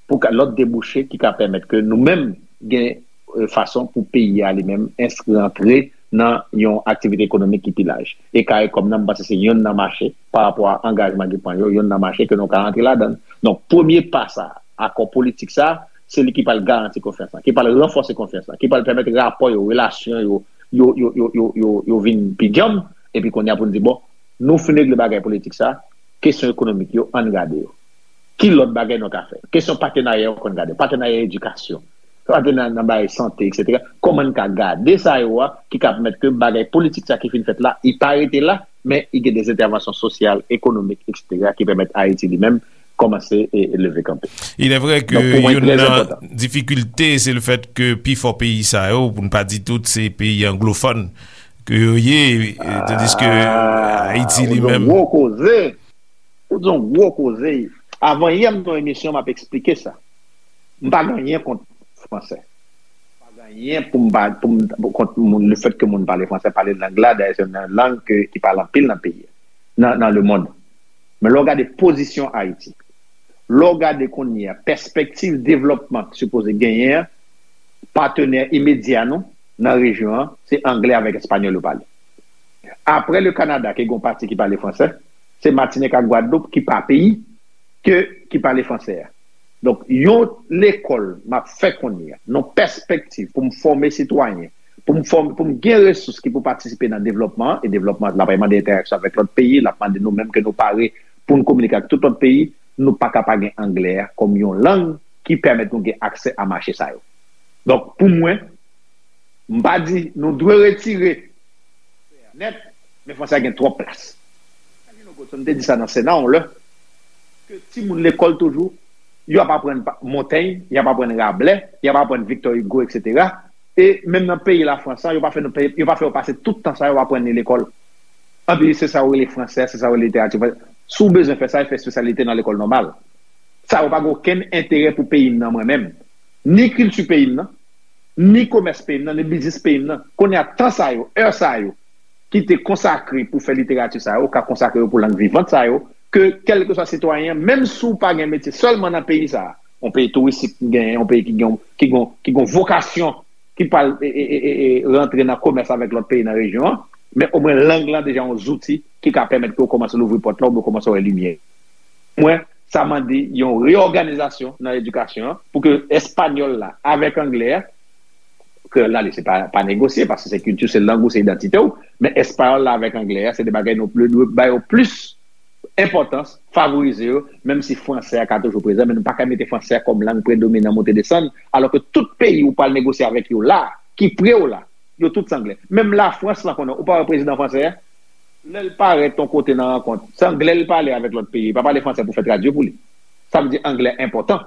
pou ka, lòt debouche ki ka pèmèt ke nou menm gen, e, fason pou peyi a li menm enskri, antre nan yon aktivite ekonomik ki pi laj. E Karikòm nan, m panse se yonn nan mache, pa rapò a angajman ki pran yo, yonn nan mache ke nou ka antre ladan l. Donk, premye pa sa, akò politik sa, se li ki pral garanti konfyans lan, ki pral ranfòse konfyans lan, ki pral pèmèt rapò yo, relasyon yo, yo, yo, yo, yo, yo, yo vin pi djanm, epi kounye a pou n di, bon, nou fin regle bagay politik sa, kesyon ekonomik yo, ann gade yo. Ki lòt bagay nou ka fè? Kesyon patenarya yo konn gade. Patenarya edikasyon. Patenarya nan bagay sante, etsetera. Kòman n ka gade sa yo a, ki ka pèmèt ke bagay politik sa ki fin fèt la, i pa rete la, men i gen de entèvansyon sosyal, ekonomik, etsetera, ki pèmèt Ayiti li menm kòmanse e, e leve kanpe. Il est vrai que youn nan difikilte, se le fèt ke pifò peyi sa yo, pou n pa di tout, se peyi anglofòn ke yo ye, e, tandis ke Ayiti li menm. Gwo koze. Ou di yon gwo koze. Avan yè m nan emisyon, m ap eksplike sa. M pa gen anyen kont fransè. Pa gen anyen pou m pa, pou m, pou kont moun, le fèt ke moun pale fransè, pale lang la, dayè se yon lang ke, ki pale anpil nan peyi a, nan, nan lemonn. Men lè w gade pozisyon Ayiti, lè w gade kounye a, pèspektiv devlòpman ki sipoze genyen an, patenè imedya nou nan rejyon an, se anglè avèk espanyòl yo pale. Apre le Kanada, ki gen yon pati ki pale fransè, se Matinik ak Gwadloup ki pa peyi, ke, ki pale fransè a. Donk, yon lekòl m ap fè kounye a, yon pèspektiv pou m fòme sitwayen, pou m fòme, pou m gen resous ki pou patisipe nan devlòpman an, e devlòpman an, l ap mande entèraksyon avèk lòt peyi, l ap mande nou menm ke nou pare pou n kominike ak tout lòt peyi, nou pa ka pa gen anglè a kòm yon lang ki pèmèt nou gen aksè a mache sa yo. Donk, pou mwen, m pa di nou dwe retire nèt, men fransè a gen twòp plas. Calvino Goodson te di sa nan Sena yon lè, ke timoun lekòl toujou, y ap aprann pa- Montaigne, y ap aprann Rabelais, y ap aprann Victor Hugo, etsetera. E menm nan peyi Lafrans, yo pa fè nou peye, yo pa fè yo pase tout tan sa yo aprann li lekòl. Anpi se sa yo rele fransè, se sa yo rele literati fransè. Si w bezwen fè sa, fè espesyalite nan lekòl nòmal. Sa yo pa gen okenn enterè pou peyi m nan, mwen menm. Ni kilti peyi m nan, ni komès peyi m nan, ni biznis peyi m nan. Kounye a, tan sa yo, è sa yo, ki te konsakre pou fè literati sa yo, ka konsakre yo pou lang vivant sa yo, ke kèlkeswa sitwayen an, menm si w pa gen metye sèlman nan peyi sa a, yon peyi touristik ki genyen, yon peyi ki gen, ki gen, ki gen vokasyon, ki pral e, e, e, e, e, rantre nan komès avèk lòt peyi nan rejyon an, men omwen lang lan deja yon zouti ki ka pèmèt ke w kòmanse louvri pòt la, oubyen w kòmanse wè limyè. Mwen, sa mande yon reyòganizasyon nan edikasyon an, pou ke espanyòl la avèk anglè a, kreyòl la, li, se pa, pa negosye, paske se kilti, se lang ou, se idantite w, men espanyòl la avèk anglè a, se de bagay nou dwe, dwe ba yo plis enpòtans, favorize yo, menm si fransè a ka toujou prezan, men nou pa ka mete fransè a kòm lang predominan monte desann, alò ke tout peyi ou pral negosye avèk yo la, ki pre w la, yo tout se anglè. Menm Lafrans lan konnen, ou pa wè prezidan fransè a, lè l parèt yon kote nan rankont, se anglè l pale avèk lòt peyi, li pa pale fransè pou fè tradui pou li. Sa vle di anglè enpòtan.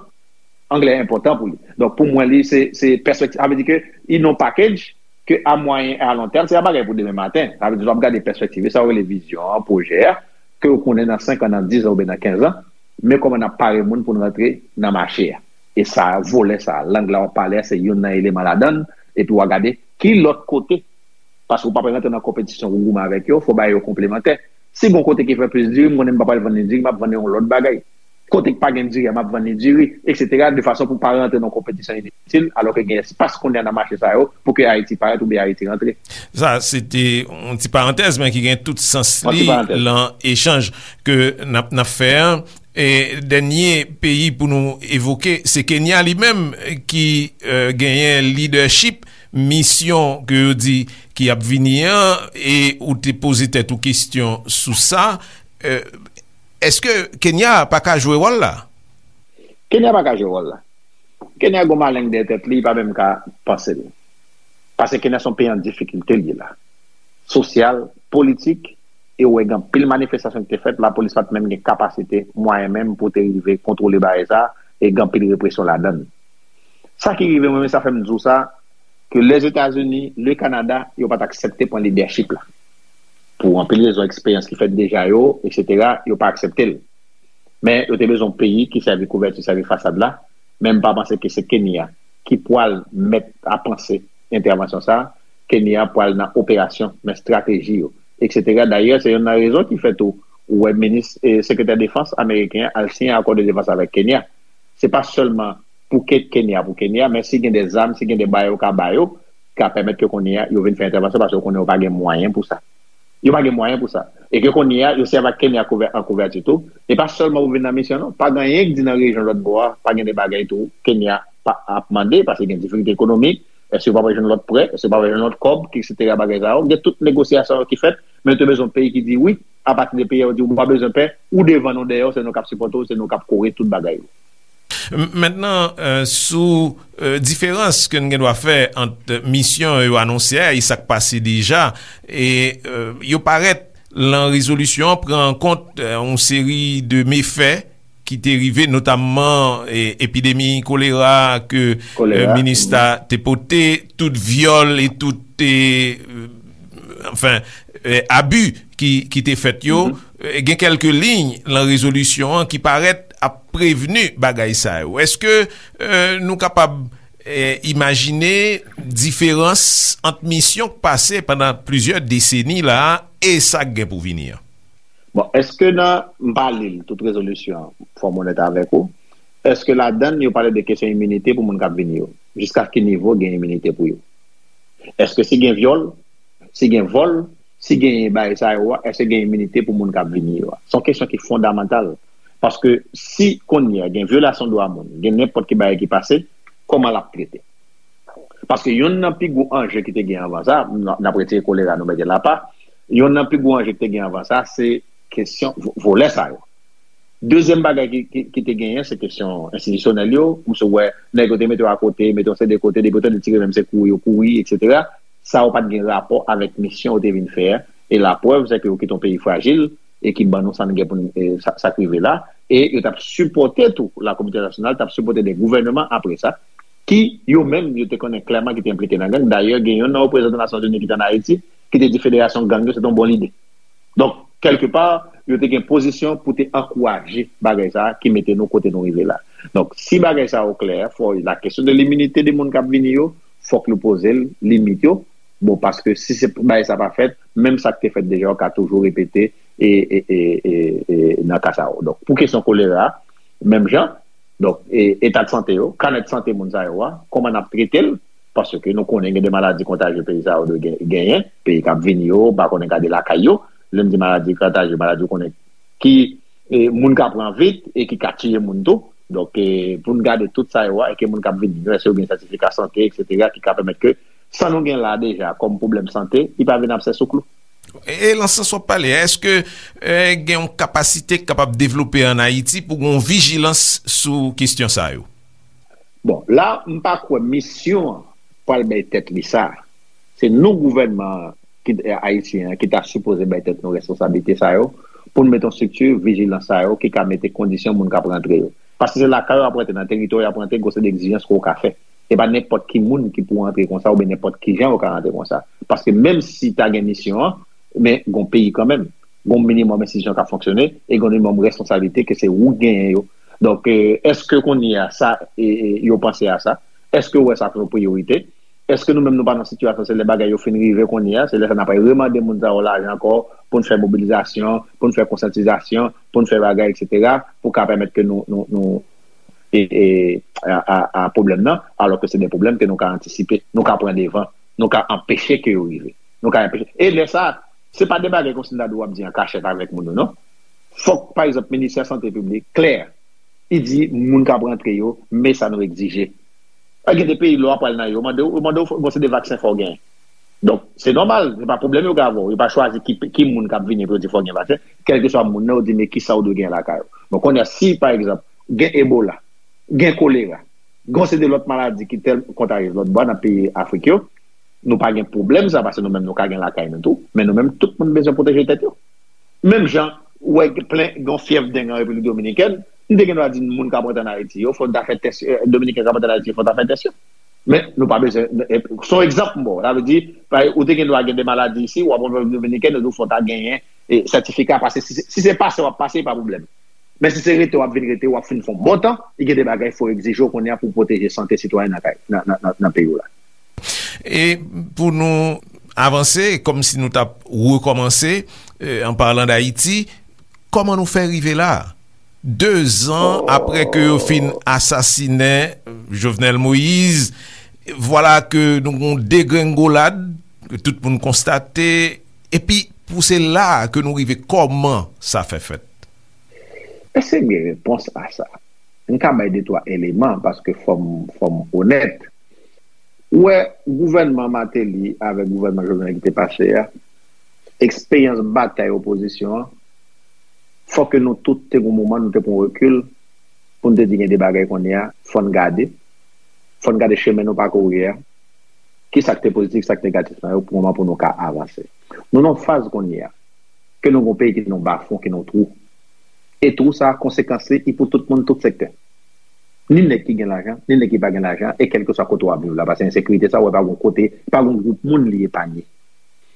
Anglè enpòtan pou li. Donk, pou mwen, li, se, se pèspektiv. Sa vle di ke, in yon package, ke a mwayen e a lon tèm, se pa bagay pou demen maten. Sa vle di, w ap gade pèspektiv, e sa w rele vizyon an, pwojè a, ke w konnen nan senk an, nan diz an, oubyen nan kenz an, men kòman n ap pare moun pou n rantre nan mache a. E sa, volè sa, lang la w ap pale a, se youn nan eleman ladan l, epi w a gade ki lòt kote, paske w pa pral rantre nan konpetisyon pou goumen avèk yo, fò w ba yo konplemantè. Si gon kote ki fè plis diri, m konnen m pa pral vann li diri, m ap vann li yon lòt bagay. Kote k pa gen diri a, m ap vann li diri, etsetera, de fason pou pa rantre nan konpetisyon initil, alò ke gen espas kounye a nan mache sa yo, pou ke Ayiti parèt oubyen Ayiti rantre. Sa, se te yon ti parantèz, men ki gen tout sans li lan echanj ke n ap, n ap fè an. E dènye peyi pou nou evoke, se Kenya li menm, ki, e, genyen lidèchip misyon ke yo di ki ap vini an, e ou te poze tèt ou kesyon sou sa. E, èske Kenya pa ka jwe wòl la? Kenya pa ka jwe wòl la. Kenya gon maleng dèyè tèt li, li pa menm ka panse l. Paske Kenya se yon peyi an difikilte l ye la. Sosyal, politik, e ou wè gen anpil manifestasyon ki te fèt, lapolis pa t menm gen kapasite, mwayen menm pou te rive kontwole bagay sa, e gen anpil represyon ladan l. Sa ki rive mwen, men sa fè m di w sa, ke Lèzetazini, le Kanada, yo pa t aksepte pran lidèchip la. Pou anpil rezon, eksperyans ki fèt deja yo, etsetera, yo pa aksepte l. Men yo te bezwen yon peyi ki sèvi kouvèti, sèvi fasad la. Men m pa panse ke se Kenya ki pral mèt a panse entèvansyon sa a. Kenya pral nan operasyon, men estrateji yo, etsetera. Dayè, se youn nan rezon ki fè tou ou wè minis, e, sekretè defans ameriken an al siyen akò de defans avèk Kenya. Se pa sèlman pou Ke-, Kenya, pou Kenya, men si gen de zam, si gen de bagay yo ka ba yo, ka pèmèt ke kounye a yo vin fè entèvansyon, paske yo konnen yo pa gen mwayen pou sa. Yo pa gen mwayen pou sa. E ke kounye a, yo sèvi ak Kenya kouvè-, an kouvèti tou. E pa sèlman pou vin nan misyon, non. Pa gen anyen ki di nan rejyon lòt bò a, pa gen de bagay tou Kenya pa, ap mande, paske gen difikilte ekonomik. Èske yo pa pral jwenn lòt prè? Èske yo pa pral jwenn lòt kòb? Etsetera, bagay sa yo. Gen tout negosyasyon yo ki fèt, men yo te bezwen yon peyi ki di wi, apati de peyi a, yo di ou pa bezwen pè, ou devan nou dèyè w, se nou k ap sipòte w, se nou k ap kore tout bagay yo. M-, mentnan, e, sou, e, diferans ke n gen dwa fè ant misyon yo anonse a e sa k pase deja, e, e, yo parèt lan rezolisyon an pran an kont, e, yon seri de mefè ki te rive, notamman, e, epidemi kolera ke, e, Kolera, minis la te pote, tout vyòl e tout, e, e, anfen, e, abi ki, ki te fèt yo. Mhm. E, gen kèlke liy lan rezolisyon an ki parèt ap prevni bagay sa yo. Èske, e, nou kapab E, imajine diferans ant misyon k pase pandan plizyè deseni la a e sa k gen pou vini an. Bon, èske nan, m pa li l, tout rezolisyon an, fò m onèt avèk ou, èske ladan l yo pale de kesyon iminite pou moun k ap vini yo? Jiska ki nivo gen iminite pou yo? Èske si gen vyòl, si gen vòl, si gen bagay sa yo a, èske gen iminite pou moun k ap vini yo a? Se yon kesyon ki fondamantal. Paske si kounye a gen vyolasyon dwa moun, gen nenpòt ki bagay ki pase, kòman l ap trete? Paske youn nan pi gwo anje ki te gen anvan sa, n ap retire kolera nou mete l apa, youn nan pi gwo anje ki te gen anvan sa, se kesyon vo- vòlè sa yo. Dezyèm bagay ki, ki, ki te genyen, se kesyon enstitisyonèl yo. M sou wè nèg yo te mete yo akote, mete yo se de kote, depi yo tande ti rimèm se kouri yo kouri, etsetera. Sa yo pa t gen rapò avèk misyon yo te vin fè a. E laprèv, se ke yo kite yon peyi frajil e ki ban nou sa n gen pou n, e, sa, sa k rive la. E yo t ap sipòte tou, la kominote entènasyonal t ap sipòte de gouvènman apre sa, ki yo menm, yo te konnen klèman ki te enplike nan gang. Dayè, gen youn nan reprezantan Nasyonzini ki te ann Ayiti, ki te di federasyon gang yo, se te yon bon lide. Donk, kèlkepa, yo te gen pozisyon pou te ankouraje bagay sa a ki mete nou kote nou rive la. Donk, si bagay sa yo klè, fò la kesyon de liminite de moun k ap vini yo, fòk nou poze l, limit yo. Bon, paske si se bagay sa pa fèt, menm sa k te fèt deja yo ka toujou repete e, e, e, e, e nan ka sa yo. Donk, pou kesyon kolera, menm jan, donk, e, eta de sante yo, kanèt sante moun sa yo a, kòman n ap trete l, paske nou konnen gen de maladi kontajye peyi sa yo dwe gen- genyen, peyi k ap vini yo, m pa konnen gade lakay yo, lè m di maladi kontajye, maladi ou konnen ki e, moun ka pran vit e ki ka tiye moun tou. Donk, e, pou n gade tout sa yo a, e ke moun k ap vini yo, èske yo gen sètifika sante, etsetera, ki ka pèmèt ke sa nou gen la deja kòm pwoblèm sante, li pa vin absè sou klou. E, e nan sans w ap pale a, èske e, gen yon kapasite k kapab devlope ann Ayiti pou gen yon vijilans sou kesyon sa yo? Bon, la, m pa kwè misyon an pral bay tèt li sa. Se nou gouvènman ki, ayisyen an ki ta sipoze bay tèt nou responsablite sa yo pou n mete yon estrikti vijilans sa yo ki ka mete kondisyon moun k ap rantre yo. Paske se lakay yo ap rantre, nan teritwa yo ap rantre, gen yon seri de egzijans ke w ka fè. E pa nenpòt ki moun ki pou rantre konsa oubyen nenpòt ki jan yo ka rantre konsa. Paske menm si ta gen misyon an, men gen yon peyi kanmenm. Gen yon minimòm enstitisyon k ap fonksyone e gen yon minimòm responsablite ke se ou k genyen yo. Donk, e, èske kounye a sa, e, e, yo panse a sa? Èske yo wè sa kòm yon priyorite? Èske nou menm nou pa nan sitiyasyon, se lè bagay yo fin rive kounye a, se lè sa n ap remande moun sa yo lajan ankò pou n fè mobilizasyon, pou n fè konsyantizasyon, pou n fè bagay, etsetera, pou ka pèmèt ke nou, nou, nou, e, e, a, a, a pwoblèm nan, alò ke se de pwoblèm ke nou ka antisipe, nou ka pran devan, nou ka anpeche ke yo rive. Nou ka anpeche. E lè sa, se pa de bagay kòmsi m ta di w ap di an kachèt avèk moun yo, non. Fòk, pa egzanp, Ministè Sante Piblik klè, li di moun k ap rantre yo, men sa nou egzije. A, gen de peyi, lè w ap pral nan yo, yo mande w, yo mande w, bon, se de vaksen fò w genyen. Donk, se nòmal, se pa pwoblèm yo gen avè w. Yo pa chwazi ki, ki moun k ap vini pou yo di fò w gen vaksen. Kèlkeswa moun nan, yo di, men kisa w dwe genyen lakay ou. Bon, kounye a, si, pa egzanp, gen Ebola, gen kolera, gen yon seri de lòt maladi ki tèl kontajyez lòt bò nan peyi Afrik yo, nou pa gen pwoblèm sa, paske nou menm nou ka gen lakay nou tou, men nou menm tout moun bezwen pwoteje tèt yo. Menm jan, ou wè plen gen yon fyèv deng an Repiblik Dominikèn, m te gen dwa di moun k ap rantre ann Ayiti yo, fò n ta fè tès, e, Dominiken k ap rantre ann Ayiti yo, fò n ta fè tès yo. Men nou pa bezwen, e, se yon egzanp m ba w, sa vle di, pa- ou te gen dwa gen de maladi isi, w ap rantre Repiblik Dominikèn, yo di w fò w ta genyen e, sètifika, paske si, si se pase w ap pase, pa pwoblèm. Men si se rete w ap vin rete, w ap fin fè yon bon tan, li gen de bagay fò egzije w kounye a pou pwoteje sante sitwayen nan kay, nan, nan, nan, nan peyi w la. E pou nou avanse, kòmsi nou t ap rekòmanse, e, an palan d Ayiti, kòman nou fè rive la? Dezan apre ke yo fin asasinen Jovenel Moïse, vwala ke nou gon degrengolad, ke tout moun konstate, epi pou se la ke nou rive, kòman sa fè fèt? Èske gen repons a sa? M ka bay de twa eleman, paske fò m, fò m onèt. Ou wè, gouvènman Martelly avèk gouvènman Jovenel ki te pase a, eksperyans batay opozisyon an, fò ke nou tout te gon moman, nou te pran rekil, pou n te di gen de bagay kounye a, fò n gade, fò n gade chemen nou pakouri a, kisa k te pozitif, kisa k negatif nan yo, pou moman pou nou ka avanse. Nou nan yon faz kounye a, ke nou gon peyi ki nan bafon, ki nan twou. E twou sa, konsekans li, li pou tout moun, tout sektè. Ni nèg ki gen lajan, ni nèg ki pa gen lajan, e kèlkeswa kote w ap viv la, paske ensekirite sa, ou wè pa gon kote, pa gon gwoup moun li epanye.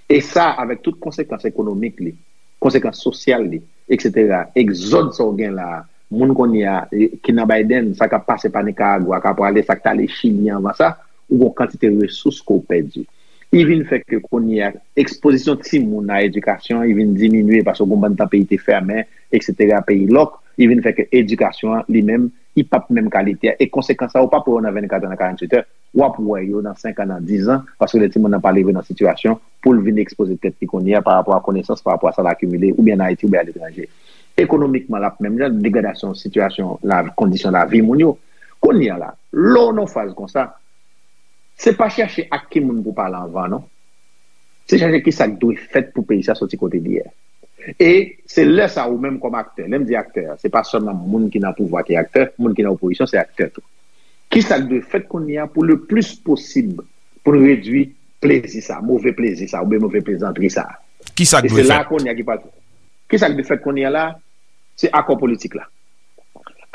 E sa, avèk tout konsekans ekonomik li, konsekans sosyal li, etsetera, egzòd sa w gen la a, moun kounye a, e, ki nan Biden, sa k ap pase pa Nicaragua, k ap prale, sa k t ale Chili anvan sa, ou gon kantite resous ke w pèdi. Li vin fè ke kounye a, ekspozisyon timoun a edikasyon, li vin diminye paske gon bann tan peyi te fèmen, et cetera, peyi lòk, li vin fè ke edikasyon an, li menm, li p ap menm kalite a. E konsekans sa, ou p ap wè yo nan vennkat è, nan karanntuit è, w ap wè yo nan senk an, nan diz an, paske lè timoun nan pa rive nan sitiyasyon pou l vin ekspoze tèt li kounye a pa rapò a konesans, pa rapò a sa l akimile, oubyen an Ayiti, oubyen aletranje. Ekonomikman, l ap menm jan, degradasyon sitiyasyon, la, kondisyon lavi moun yo. Kounye a la, lè w nan faz konsa, se pa chèche ak ki moun pou pale anvan, non. Se chèche ki sa k dwe fèt pou peyi sa soti kote li ye. E se lè sa ou menm kòm aktè, lè m di aktè, se pa sèlman moun ki nan pouvwa ki aktè, moun ki nan opozisyon se aktè tou. Ki sa k dwe fèt kounye a pou le plis posib pou n redui plezi sa, move plezi sa, oubyen move plezantri sa? Ki sa k E dwe se la fèt? Kounye a ki pa. Ki sa k dwe fèt kounye a la? Se akò politik la.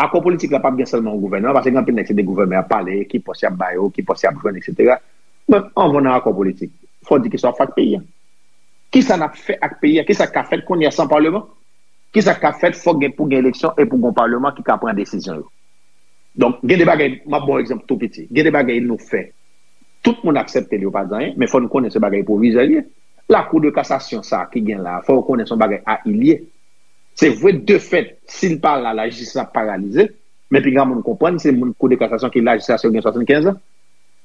Akò politik la p ap gen sèlman yon gouvènman, paske gen anpil nèg se de gouvènman y ap pale, ki pòs y ap ba yo, ki pòs y ap jwenn, et cetera. Men anvan nan akò politik, fò w di kisa w ap fè ak peyi a. Kisa n ap fè ak peyi a? Kisa k ka fèt kounye a san palman? Kisa k ka fèt? Fòk gen, pou gen eleksyon e pou gen yon palman ki ka pran desizyon yo. Donk, gen de bagay, m ap ba w egzanp tou piti. Gen de bagay nou fè. Tout moun aksepte l, yo pa di anyen, men fò n konnen se bagay pwovizwè l ye. Lakou de kasasyon sa ki gen la, fò yo konnen se yon bagay a il ye. Se vre, de fèt, si l pa la, lajistis ap paralize, men piga moun konprann, se moun kou de kasasyon ki la jiska se yo gen swasannkenz an.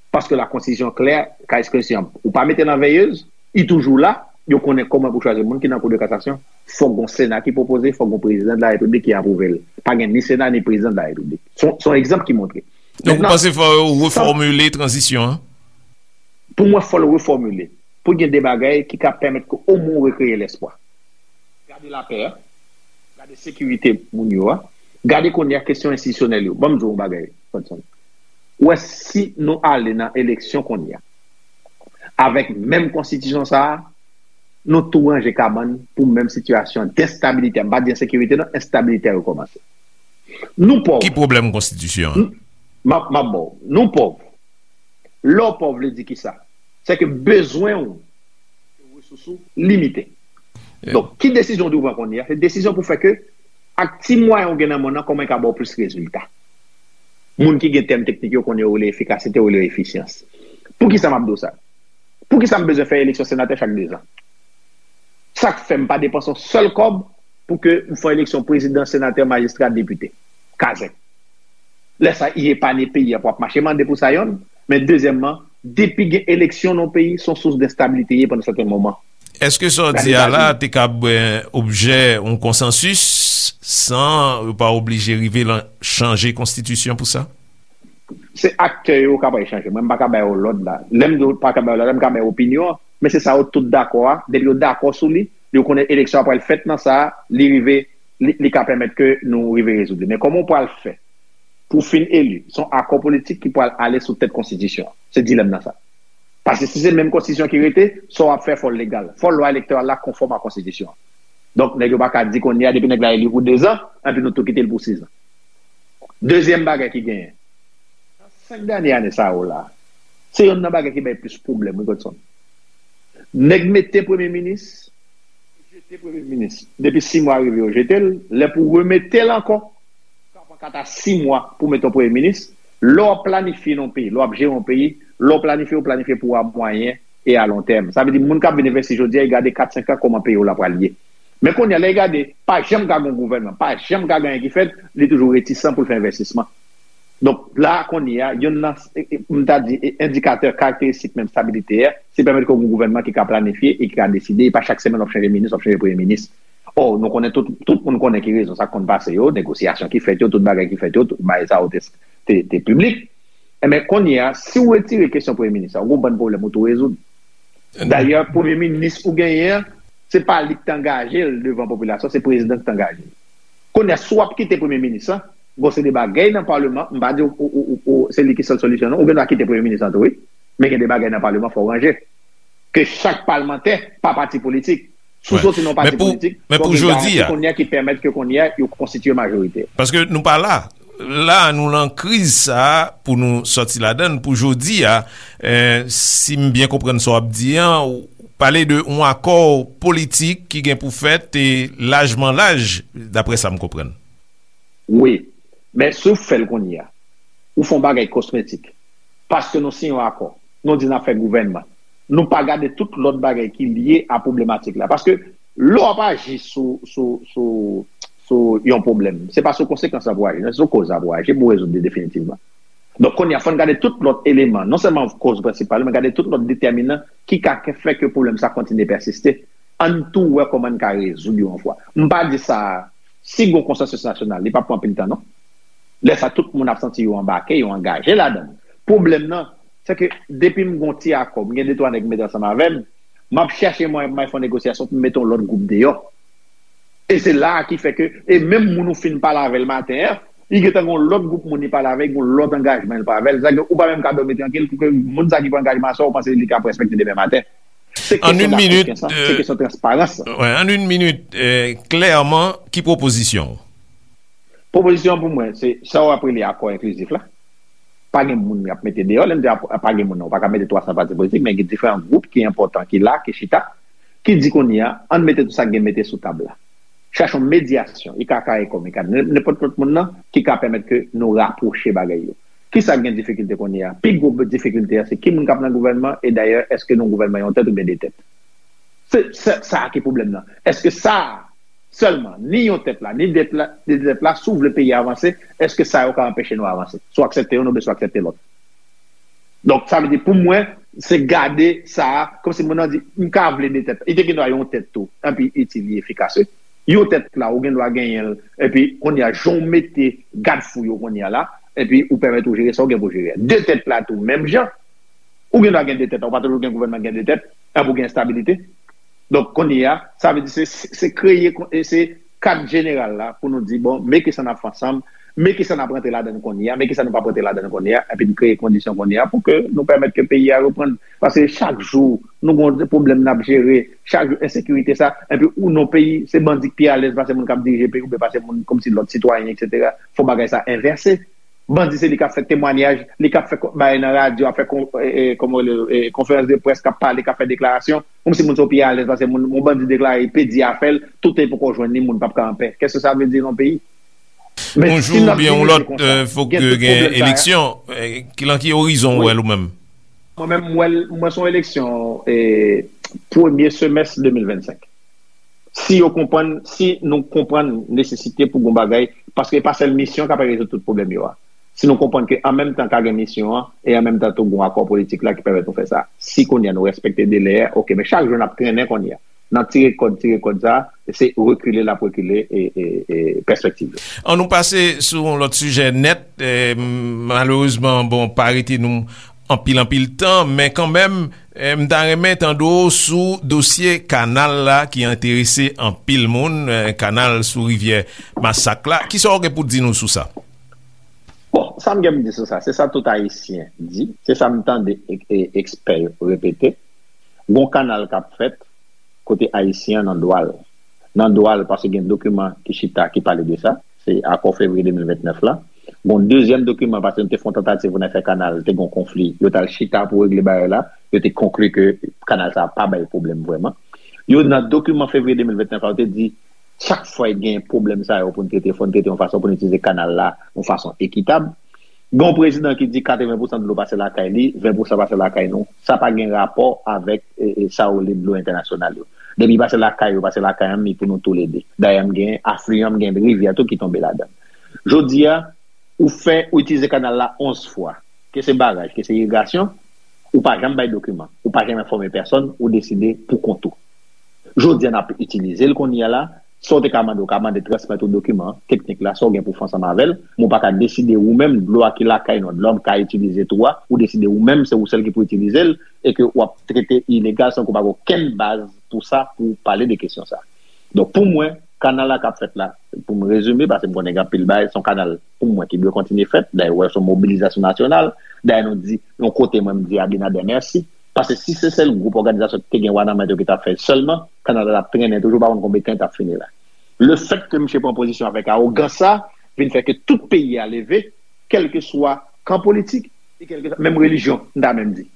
Paske la konstitisyon klè, ka ekspresyon, ou pa mete nan veyez, li toujou la, yo konnen kòman pou chwazi moun ki nan kou de kasasyon. Fòk gon sena ki pwopoze, fòk gon prezidan de la repiblik ki apwouve l. Pa gen ni sena ni prezidan de la repiblik. Se yon, se yon egzanp ki montre. Donk ou panse fò yo refòmile tranzisyon an? Pou mwen, fò l refòmile. Pou gen de bagay ki ka pèmèt ke omwen w rekreye lespwa. Gade lapè a, gade sekirite moun yo a, gade kounye a kesyon enstitisyonèl yo. Ban m di w yon bagay, Fredson. Ou wè, si nou ale nan eleksyon kounye a, avèk menm konstitisyon sa a, nou tou ranje kabann pou menm sitiyasyon d enstabilite. M pa di ensekirite, non, enstabilite a rekòmanse. Nou pòv. Ki pwoblèm konstitisyon an? M ap, m ap ba w. Nou pòv. Lè w pòv vle di kisa? Se ke bezwen w, resous ou limite. Donk, ki desizyon w dwe pran kounye a? Se desizyon pou fè ke, ak ti mwayen w gen nan men w nan, kòman e ka ba w plis rezilta. Moun ki gen tèm teknik yo konnen yo rele efikasite, yo rele efisyans. Poukisa m ap di w sa? Poukisa m bezwen fè eleksyon senatè chak dezan? Sa k fè m pa depanse yon sèl kòb pou ke m fè eleksyon prezidan, senatè, majistra, depite? Kazèk. Lè sa, i epanye peyi a pou ap mache mande pou sa yonn. Men dezyèmman, depi gen eleksyon nan yon peyi, se yon sous d enstabilite ye pandan sèten moman. Èske sa w di a la te kab, eh, objè yon konsansis san yo pa oblije rive lan chanje konstitisyon pou sa? Se aktè yo k ap al chanje. Mwen, m pa ka ba yo lòd la. Lè m di w pa ka ba yo lòd la, m ka ba yo opinyon an. Men se sa yo tout dakò a. Depi yo dakò sou li, yo konnen eleksyon an pral fèt nan sa, li rive, li, li ka pèmèt ke nou rive rezoud li. Men kòman w pral fè pou w fin eli? Se yon akò politik ki pral ale sou tèt konstitisyon an. Se dilèm nan sa. Paske si se menm konstitisyon ki rete, sa w ap fè fò l legal. Fò lwa elektoral la konfòm a konstitisyon an. Donk, nèg yo pa ka di kounye a, depi nèg la eli pou dezan, anpi nou tou kite l pou sizan. Dezyèm bagay ki genyen, nan senk dènye ane sa yo la, se yonn nan bagay ki bay plis pwoblèm, wi, Godson. Nèg mete premye minis, jete premye minis. Depi sis mwa rive, yo jete l. Lè pou remete l ankò, sa pran kat a sis mwa pou mete yon premye minis. Lè w ap planifye nan yon peyi, lè w ap jere yon peyi, lè w planifye, w planifye pou a mwayen e a lon tèm. Sa vle di, moun k ap vin envesti jodi a, y gade kat, senk an, kòman peyi w la pral ye. Men kounye a, lè y gade, pa janm ka gen yon gouvènman, pa janm ka gen anyen ki fèt, li toujou retisan pou l fè envestisman. Donk, la, kounye a, yonn nan, e, e, m ta di, e, endikatè karakteristik menm stabilite a, se pèmèt ke w gen yon gouvènman ki ka planifye e ki ka deside, e pa chak semèn w ap chanje minis, w ap chanje premye minis. Ò, nou konnen tout, tout moun konnen ki rezon sa konn pase yo, negosyasyon ki fèt yo, tout bagay ki fèt yo, tout bagay sa yo te, te, te piblik. Enben, kounye a, si w retire kesyon premye minis la, w gen yon bann pwoblèm ou tou rezoud. Dayè, premye minis ou genyen an, se pa li ki t angaje l devan popilasyon, se prezidan ki t angaje l. Kounye a, si w ap kite premye minis lan, gon seri de bagay nan paleman, m pa di w, w, w, w, w, se li ki sèl solisyon, non. Ou gen dwa kite premye minis lan tou, wi. Men gen de bagay nan paleman, fò w ranje. Ke chak palmantè, pa pati politik, si w soti nan yon pati politik, fò gen garanti kounye a ki pèmèt ke kounye a yo konstitye majorite. Paske nou pa la. La, nou lan kriz sa a pou nou sòti ladan l pou jodi a. Eh, si m byen konprann sa w ap di an, ou pale de yon akò politik ki gen pou fèt e lajman laj, daprè sa m konprann. Wi. Men si w fè l kounye a, ou fè yon bagay kosmetik. Paske nou siyen yon akò. Nou di n ap fè gouvènman. Nou pa gade tout lòt bagay ki lye a pwoblematèk la. Paske lè w ap aji sou, sou, sou, sou yon pwoblèm, se pa sou konsekans la pou w aji, non, se sou koz la pou w aji pou w rezoud li definitivman. Donk, kounye a, fò n gade tout lòt eleman, non sèlman koz prensipal, men gade tout lòt detèminan ki ka fè ke pwoblèm sa kontinye pèsiste. Ann tou wè kòman n ka rezoud yo yon fwa. M pa di sa, si gen yon konsansis nasyonal, li p ap pran anpil tan, non. Lè sa, tout moun ap santi yo anbake, yo angaje ladan l. Pwoblèm nan, se ke depi m gen yon ti akò, m gen de twa nèg m mete ansanm avè m, m ap chèche mwayen pou m al fè yon negosyasyon pou m mete yon lòt gwoup deyò. E se la a ki fè ke, e menm moun ou fin pale avè l maten an, li gentan gen yon lòt gwoup moun li pale avè l, gen yon lòt angajman li pale avè l. Sa ke ou pa menm ka dòmi trankil pou ke moun sa ki pran angajman sa, ou panse li ka respekte demen maten. Se An kesyon yon minit, dakosyan sa, se kesyon transparans sa. Wè, an yon minit, eh, klèman, ki pwopozisyon w? Pwopozisyon pou mwen, se sa w ap rele akò enklizif la. Pa gen moun y ap mete deyò. Lè m di ap- pa gen moun nan, ou pa ka mete twa san pati politik, men gen diferan gwoup ki enpòtan, ki la, ki chita, ki di kounye a, ann mete tout sa k gen mete sou tab la. Chache yon medyasyon, I K K, Ecom, I K A D, nenpòt lòt moun nan, ki ka pèmèt ke nou rapwoche bagay yo. Kisa k gen difikilte kounye a? Pi gwo difikilte a, se ki moun k ap nan gouvènman, e dayè, èske nou gouvènman yon tèt oubyen de tèt? Se, se sa ki pwoblèm nan. Èske sa a sèlman, ni yon tèt la, ni dèt la, ni de tèt la, si w vle peyi a avanse, èske sa yo ka anpeche nou avanse? Swa aksepte youn oubyen swa aksepte lòt. Donk, sa vle di, pou mwen, se gade sa a, kòmsi moun nan di, m ka vle de tèt. Li te gen dwa yon tèt tou, epi itil li efikas, wi. Yon tèt la, ou gen dwa genyen l, epi kounye a, jan w mete gadfou yo kounye a la, epi ou pèmèt ou jere sa w gen pou jere. De tèt la tou, menm jan. Ou gen dwa gen de tèt, ou pa toujou gen gouvènman gen de tèt, epi ou gen estabilite. Donk, kounye a, sa vle di se, se kreye, e se kad jeneral la pou nou di, bon, men kisa n ap fè ansanm, men kisa n ap rantre ladan l kounye a, men kisa nou p ap rantre ladan l kounye a, epi n kreye kondisyon kounye a pou ke nou pèmèt ke peyi a reprann. Paske chak jou, nou gen yon pwoblèm n ap jere, chak jou, ensekirite sa, epi ou nan peyi, se bandi k pi alèz pase moun k ap dirije peyi, oubyen pase moun kòmsi lòt sitwayen, etsetera. Fò bagay sa envèse. Bandi se li k ap fè temwanyaj, li k ap fè ko- bagay nan radyo, ap fè kon- e, e, kòman rele l, e, konferans de près, k ap pale, k ap fè deklarasyon. Kòmsi moun sa yo pi alèz pase moun, yon bandi deklare, pedi a fè l, tout tan li poko jwenn li, moun p ap ka anpè. Kèske sa vle di nan yon peyi? Men si n ap dirije konsa, gen tout pwoblèm sa yo. Yon jou oubyen yon lòt, eh, fòk gen eleksyon. Eh, ki, lan ki orizon w wè l ou menm? Mwen menm, m wè l, mwen se yon eleksyon, eh, premye semès de mil vennsenk. Si yo konprann, si nou konprann nesesite pou gon bagay, paske e pa sèl misyon k ap rezoud tout pwoblèm yo a. Si nou konprann ke an menm tan ka gen misyon an, e an menm tan tou gon akò politik la ki pèmèt nou fè sa. Si kounye a nou respekte delè a, oke, men chak jou n ap trennen kounye a. N ap tire kòd, tire kòd sa, se rekile l ap rekile, e, e, e pèspektiv yo. An nou pase sou yon lòt sijè nèt, eh, malerezman, bon, pa rete nou anpil, anpil tan, men kanmenm, eh, m ta renmen tande w sou dosye kanal la ki enterese anpil moun, eh, kanal sou rivyè Masak la. Kisa w gen pou di nou sou sa? Bon, sa m gen pou di sou sa, se sa tout Ayisyen di, se sa m tande e- e- ekspè yo repete. Gon kanal k ap fèt kote Ayisyen an nan dwa l. Nan dwa l, paske gen dokiman ki chita, ki pale de sa. Se akò fevriye de mil vennèf la. Gon dezyèm dokiman, paske nou te fè yon tantativ pou n al fè kanal, te gon konfli. Yo t al chita pou regle bagay la. Yo te konkli ke kanal sa a pa bay pwoblèm vrèman. Yo, nan dokiman fevriye de mil vennèf la, yo te di, chak fwa gen pwoblèm sa yo pou n trete, fò n trete yon fason pou n itilize kanal la yon fason ekitab. Gen yon prezidan ki di katreven pousan dlo pase lakay li, ven pousan pase lakay nou. Sa pa gen rapò avèk, e, e, sa yo rele dlo entènasyonal yo. Depi pase lakay yo, pase lakay an, mi pou nou toulede. Dayè, m gen afliyan, m gen rivyè tou ki tonbe ladan. Jodi a, ou fè, ou itilize kanal la onz fwa. Ke se baraj, ke se irigasyon, ou pa janm bay dokiman, ou pa janm enfòme pèsonn, ou deside pou kont ou. Jodi a, n ap itilize l kounye a la, sa w te ka mande, ou ka mande transmèt ou dokiman teknik la, sa w gen pou fè ansanm avè l, men ou pa ka deside ou menm, dlo a ki lakay nou, dlo a m ka itilize tou a, ou deside ou menm, se ou sèl ki pou itilize l, e ke w ap trete ilegal san ke w pa gen okenn baz pou sa, pou w pale de kesyon sa. Donk, pou mwen, kanal la k ap fèt la, pou m rezime, paske m konnen gen anpil bagay, se yon kanal, pou mwen, ki dwe kontinye fèt. Dayè, w wè, se yon mobilizasyon nasyonal. Dayè, nou di, yon kote, mwen, m di Abinader mèsi. Paske si se sèl gwoup òganizasyon ki te gen wa nan men yo ki t ap fè l sèlman, kanal la t ap trennen toujou, pa konn konbyen tan l t ap fini la. Lefètke misye pran pozisyon avèk awogans sa, vin fè ke tout peyi a leve, kèlkeswa kan politik, e kèlkeswa, menm relijyon, m ta menm di.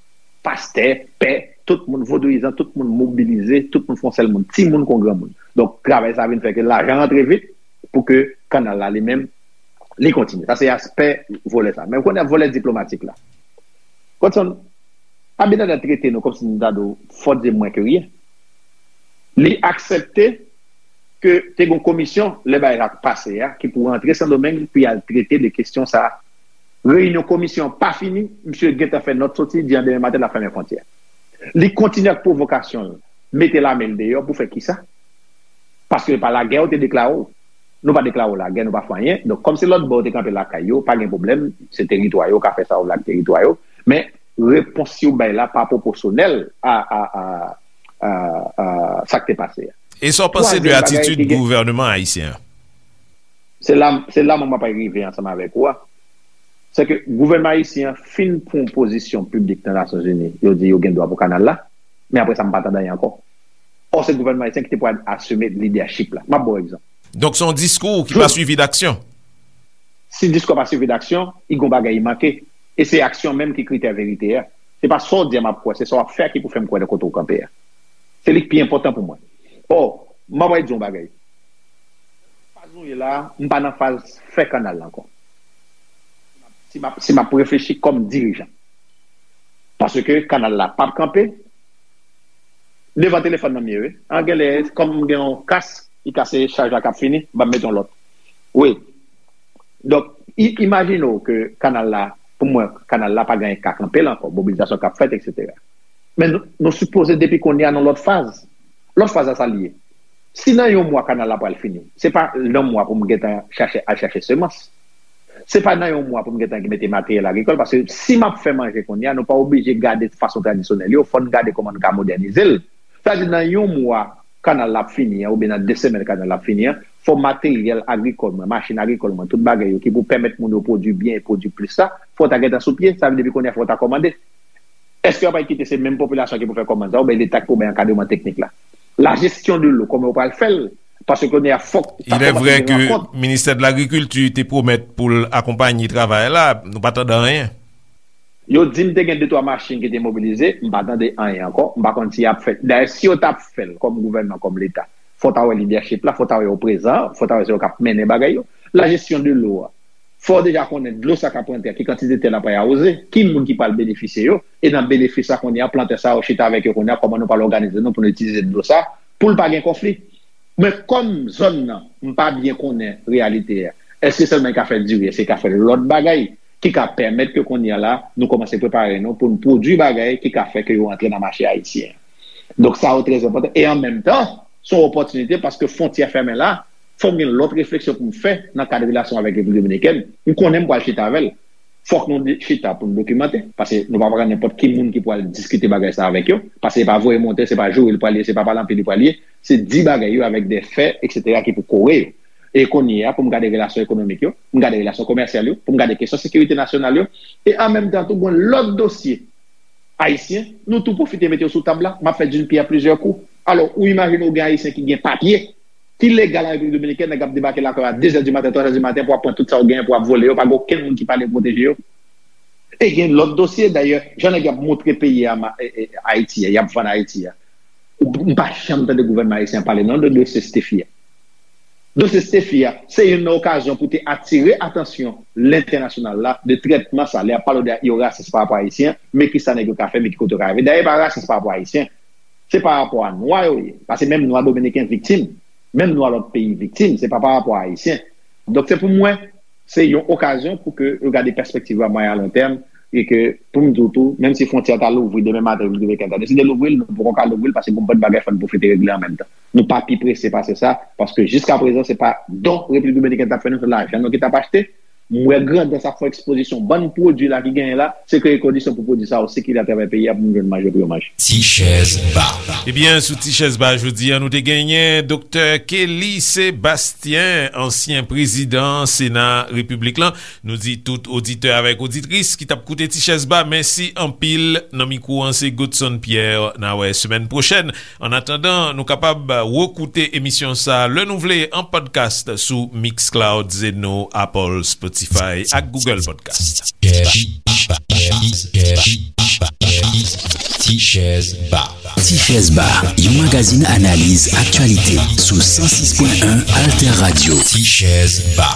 Pastè, pè, tout moun, vodouyizan, tout moun mobilize, tout moun fè yon sèl moun, timoun kon granmoun. Donk, travay sa vin fè ke lajan rantre vit pou ke kanal la li menm Li kontinye. Sa se aspè vòlè sa. Men ou konnen vòlè diplomatik la. Godson, Abinader trete nou kòmsi nou ta di w fòt de mwen ke ryen. Li aksepte ke te gen yon komisyon, lè bagay sa pase a, ki pou rantre Sendomeng pou y al trete de kesyon sa a. Reyinyon komisyon an pa fini, misye gentan fè nòt soti, di an demen maten l ap fèmen fwontyè. Li kontinye ak pwovokasyon l, mete lame l deyò pou fè kisa? Paske pa lagè yo te deklare w. Nou pa deklare w lagè, nou pa fè anyen. Donk, kòmsi lòt bò yo te kanpe lakay yo, pa gen pwoblèm, se teritwa yo, ka fè sa yo vle ak teritwa yo. Men, repons yo bay la pa pwoposyonèl a, a, a, a, a sa k te pase a. E sa w panse de atitid gouvènman ayisyen an? Se la, se la mwen m ap rive ansanm avèk ou a. Se ke gouvènman ayisyen an fin pran pozisyon piblik nan Nasyonzini, yo di yo gen dwa pou kanal la, men apre sa, m pa tande anyen ankò. Ò, se gouvènman ayisyen ki te pral asime lidèchip la. M ap ba w egzanp. Donk, se yon diskou ki pa swivi d aksyon. Si diskou pa swivi d aksyon, i gon bagay i manke. E se aksyon menm ki kritè verite a. Se pa sa w di a m ap kwè, se sa w ap fè a ki pou fè m kwè nan kote w kanpe a. Se li k pi enpòtan pou mwen. Ò, m ap di yon bagay. Faz nou ye la, m pa nan faz fè kanal la ankò. Si m ap, si m ap reflechi kòm dirijan. Paske kanal la p ap kanpe. Devan telefòn nan m ye, wi. An genlè, kòm m gen yon kas, li kase chaj la k ap fini, m ap mete yon lòt. Wi. Donk, i, imajine w ke kanal la, pou mwen, kanal la pa gen ka kanpe l ankò, mobilizasyon k ap fèt, etsetera. Men nou, nou sipoze depi kounye a nan lòt faz. Lòt faz la sa l ye. Si nan yon mwa kanal la pral fini, se pa nan mwa pou m gentan chache, al chache semans. Se pa nan yon mwa pou m gentan mete materyèl agrikòl, paske si m ap fè manje kounye a, nou pa oblije gade fason tradisyonèl yo, fò n gade kòman n ka modènize l. Sa vle di nan yon mwa kanal la ap fini an, oubyen nan de semèn kanal la ap fini an, fò materyèl agrikòl mwen, machin agrikòl mwen, tout bagay yo ki pou pèmèt moun yo pwodui byen e pwodui plis la, fò ta gentan sou pye, sa vle di depi kounye a fò ta kòmande. Èske yo pral kite se menm popilasyon ki pou fè kòmand sa, oubyen Leta ki pou bay ankadreman teknik la? La gestion de l'eau, kòman yo pral fè l? Paske kounye a fòk ta kòmanse gen rankont. Il est vrai que ministè de l'agriculture te pwomèt pou l akonpaye travay la, nou pa tande anyen. Yo di m te gen de twa machin ki te mobilize, m pa tande anyen ankò, m pa konn si y ap fè. Dayè, si yo t ap fè l kòm gouvènman, kòm Leta, fò ta wè lidèchip la, fò ta wè yo prezan, fò ta wè se yo k ap mennen bagay yo. La gestion de l'eau a, fò w deja konnen dlo sa k ap rantre a, ki kantite tè l ap awoze, ki moun ki pral benefisye yo, e nan benefis sa kounye a, plantè sa yo chita avèk yo kounye a, kòman nou pral òganize nou pou nou itilize dlo sa, pou l pa gen konfli. Men kòm zòn nan, m pa byen konnen reyalite a, èske sèlman e ka fè diri, èske e ka fè lòt bagay ki ka pèmèt ke kounye a la, nou kòmanse prepare nou pou n pwodui bagay ki ka fè ke yo antre nan mache ayisyen an. Donk sa yo trè enpòtan. E an menm tan, se yon opòtinite paske fwontyè fèmen la, fò m gen lòt refleksyon pou m fè nan kad relasyon avèk Repiblik Dominikèn. M konnen m pral chita avè l. Fòk nou di- chita pou n dokimante, paske nou pa pran nenpòt ki moun ki pral diskite bagay sa avèk yo, paske se pa voye monte, se pa joure li pral ye, se pa pale anpil li pral ye, se di bagay yo avèk de fè, etsetera, ki pou kore yo. E kounye a, pou m gade relasyon ekonomik yo, pou m gade relasyon komèsyal yo, pou m gade kesyon sekirite nasyonal yo, e an menm tan tou, gen lòt dosye ayisyen, nou tou pwofite mete yo sou tab la, m ap fè d'une pierre plusieurs coups. Alò, ou imajine w gen ayisyen ki gen papye, ki legal an Repiblik Dominikèn, nèg ap debake lakay w a de zè di maten, twa zè di maten pou ap pran tout sa w genyen, pou ap vole yo, pa gen okenn moun ki pale pwoteje yo. E gen lòt dosye, dayè, jan nèg y ap montre peyi a, ma- e- e- Ayiti a, y ap vann Ayiti a. Ou- M pa janm tande gouvènman ayisyen pale non de dosye Stephy a. Dosye Stephy a, se youn nan okazyon pou te atire atansyon lentènasyonal la de trètman sa, lè y ap pale de yo rasis pa rapò a Ayisyen, men kisa nèg yo ka fè, men ki kote yo ka rive. Dayè, e pa rasis pa rapò a Ayisyen, se pa rapò a nwa yo ye. Paske menm nwa dominiken viktim, menm nwa lòt peyi viktim, se pa pa rapò a Ayisyen. Donk, se pou mwen, se yon okazyon pou ke yo gade pèspektiv a mwayen a lon tèm, e ke, pou m di w tou, menm si fwontyè a ta louvri demen maten, Repiblik Dominikèn ta deside louvri l, nou poko ka louvri l, paske gon bann bagay fò n pwofite regle an menm tan. Nou pa pi prese pase sa, paske jiska prezan, se pa don Repiblik Dominikèn t ap fè nou, se lajan nou ki t ap achte. M wè grandans ap fè ekspozisyon bann pwodui la ki genyen la, se kreye kondisyon pou pwodui sa yo sikile atravè peyi a pou moun jwenn manje pou yo manje. Ti chèz ba. Ebyen, sou Ti chèz ba jodi a, nou te genyen Doktè Kelly Sébastien, ansyen prezidan Sena Repiblik lan. Nou di tout oditè avèk oditris ki t ap koute Ti chèz ba, mèsi anpil. Nan mikwo an, se Godson Pierre. N a wè semèn pwochèn. Annatandan, nou kapab rekoute emisyon sa a lè nou vle an podcast sou Mixcloud, Zeno, Apple, Spotify ak Google Podcast. Ti chèz ba. Ti chèz ba, yon magazin analiz aktyalite sou san sis pwen en Alter Radio. Ti chèz ba.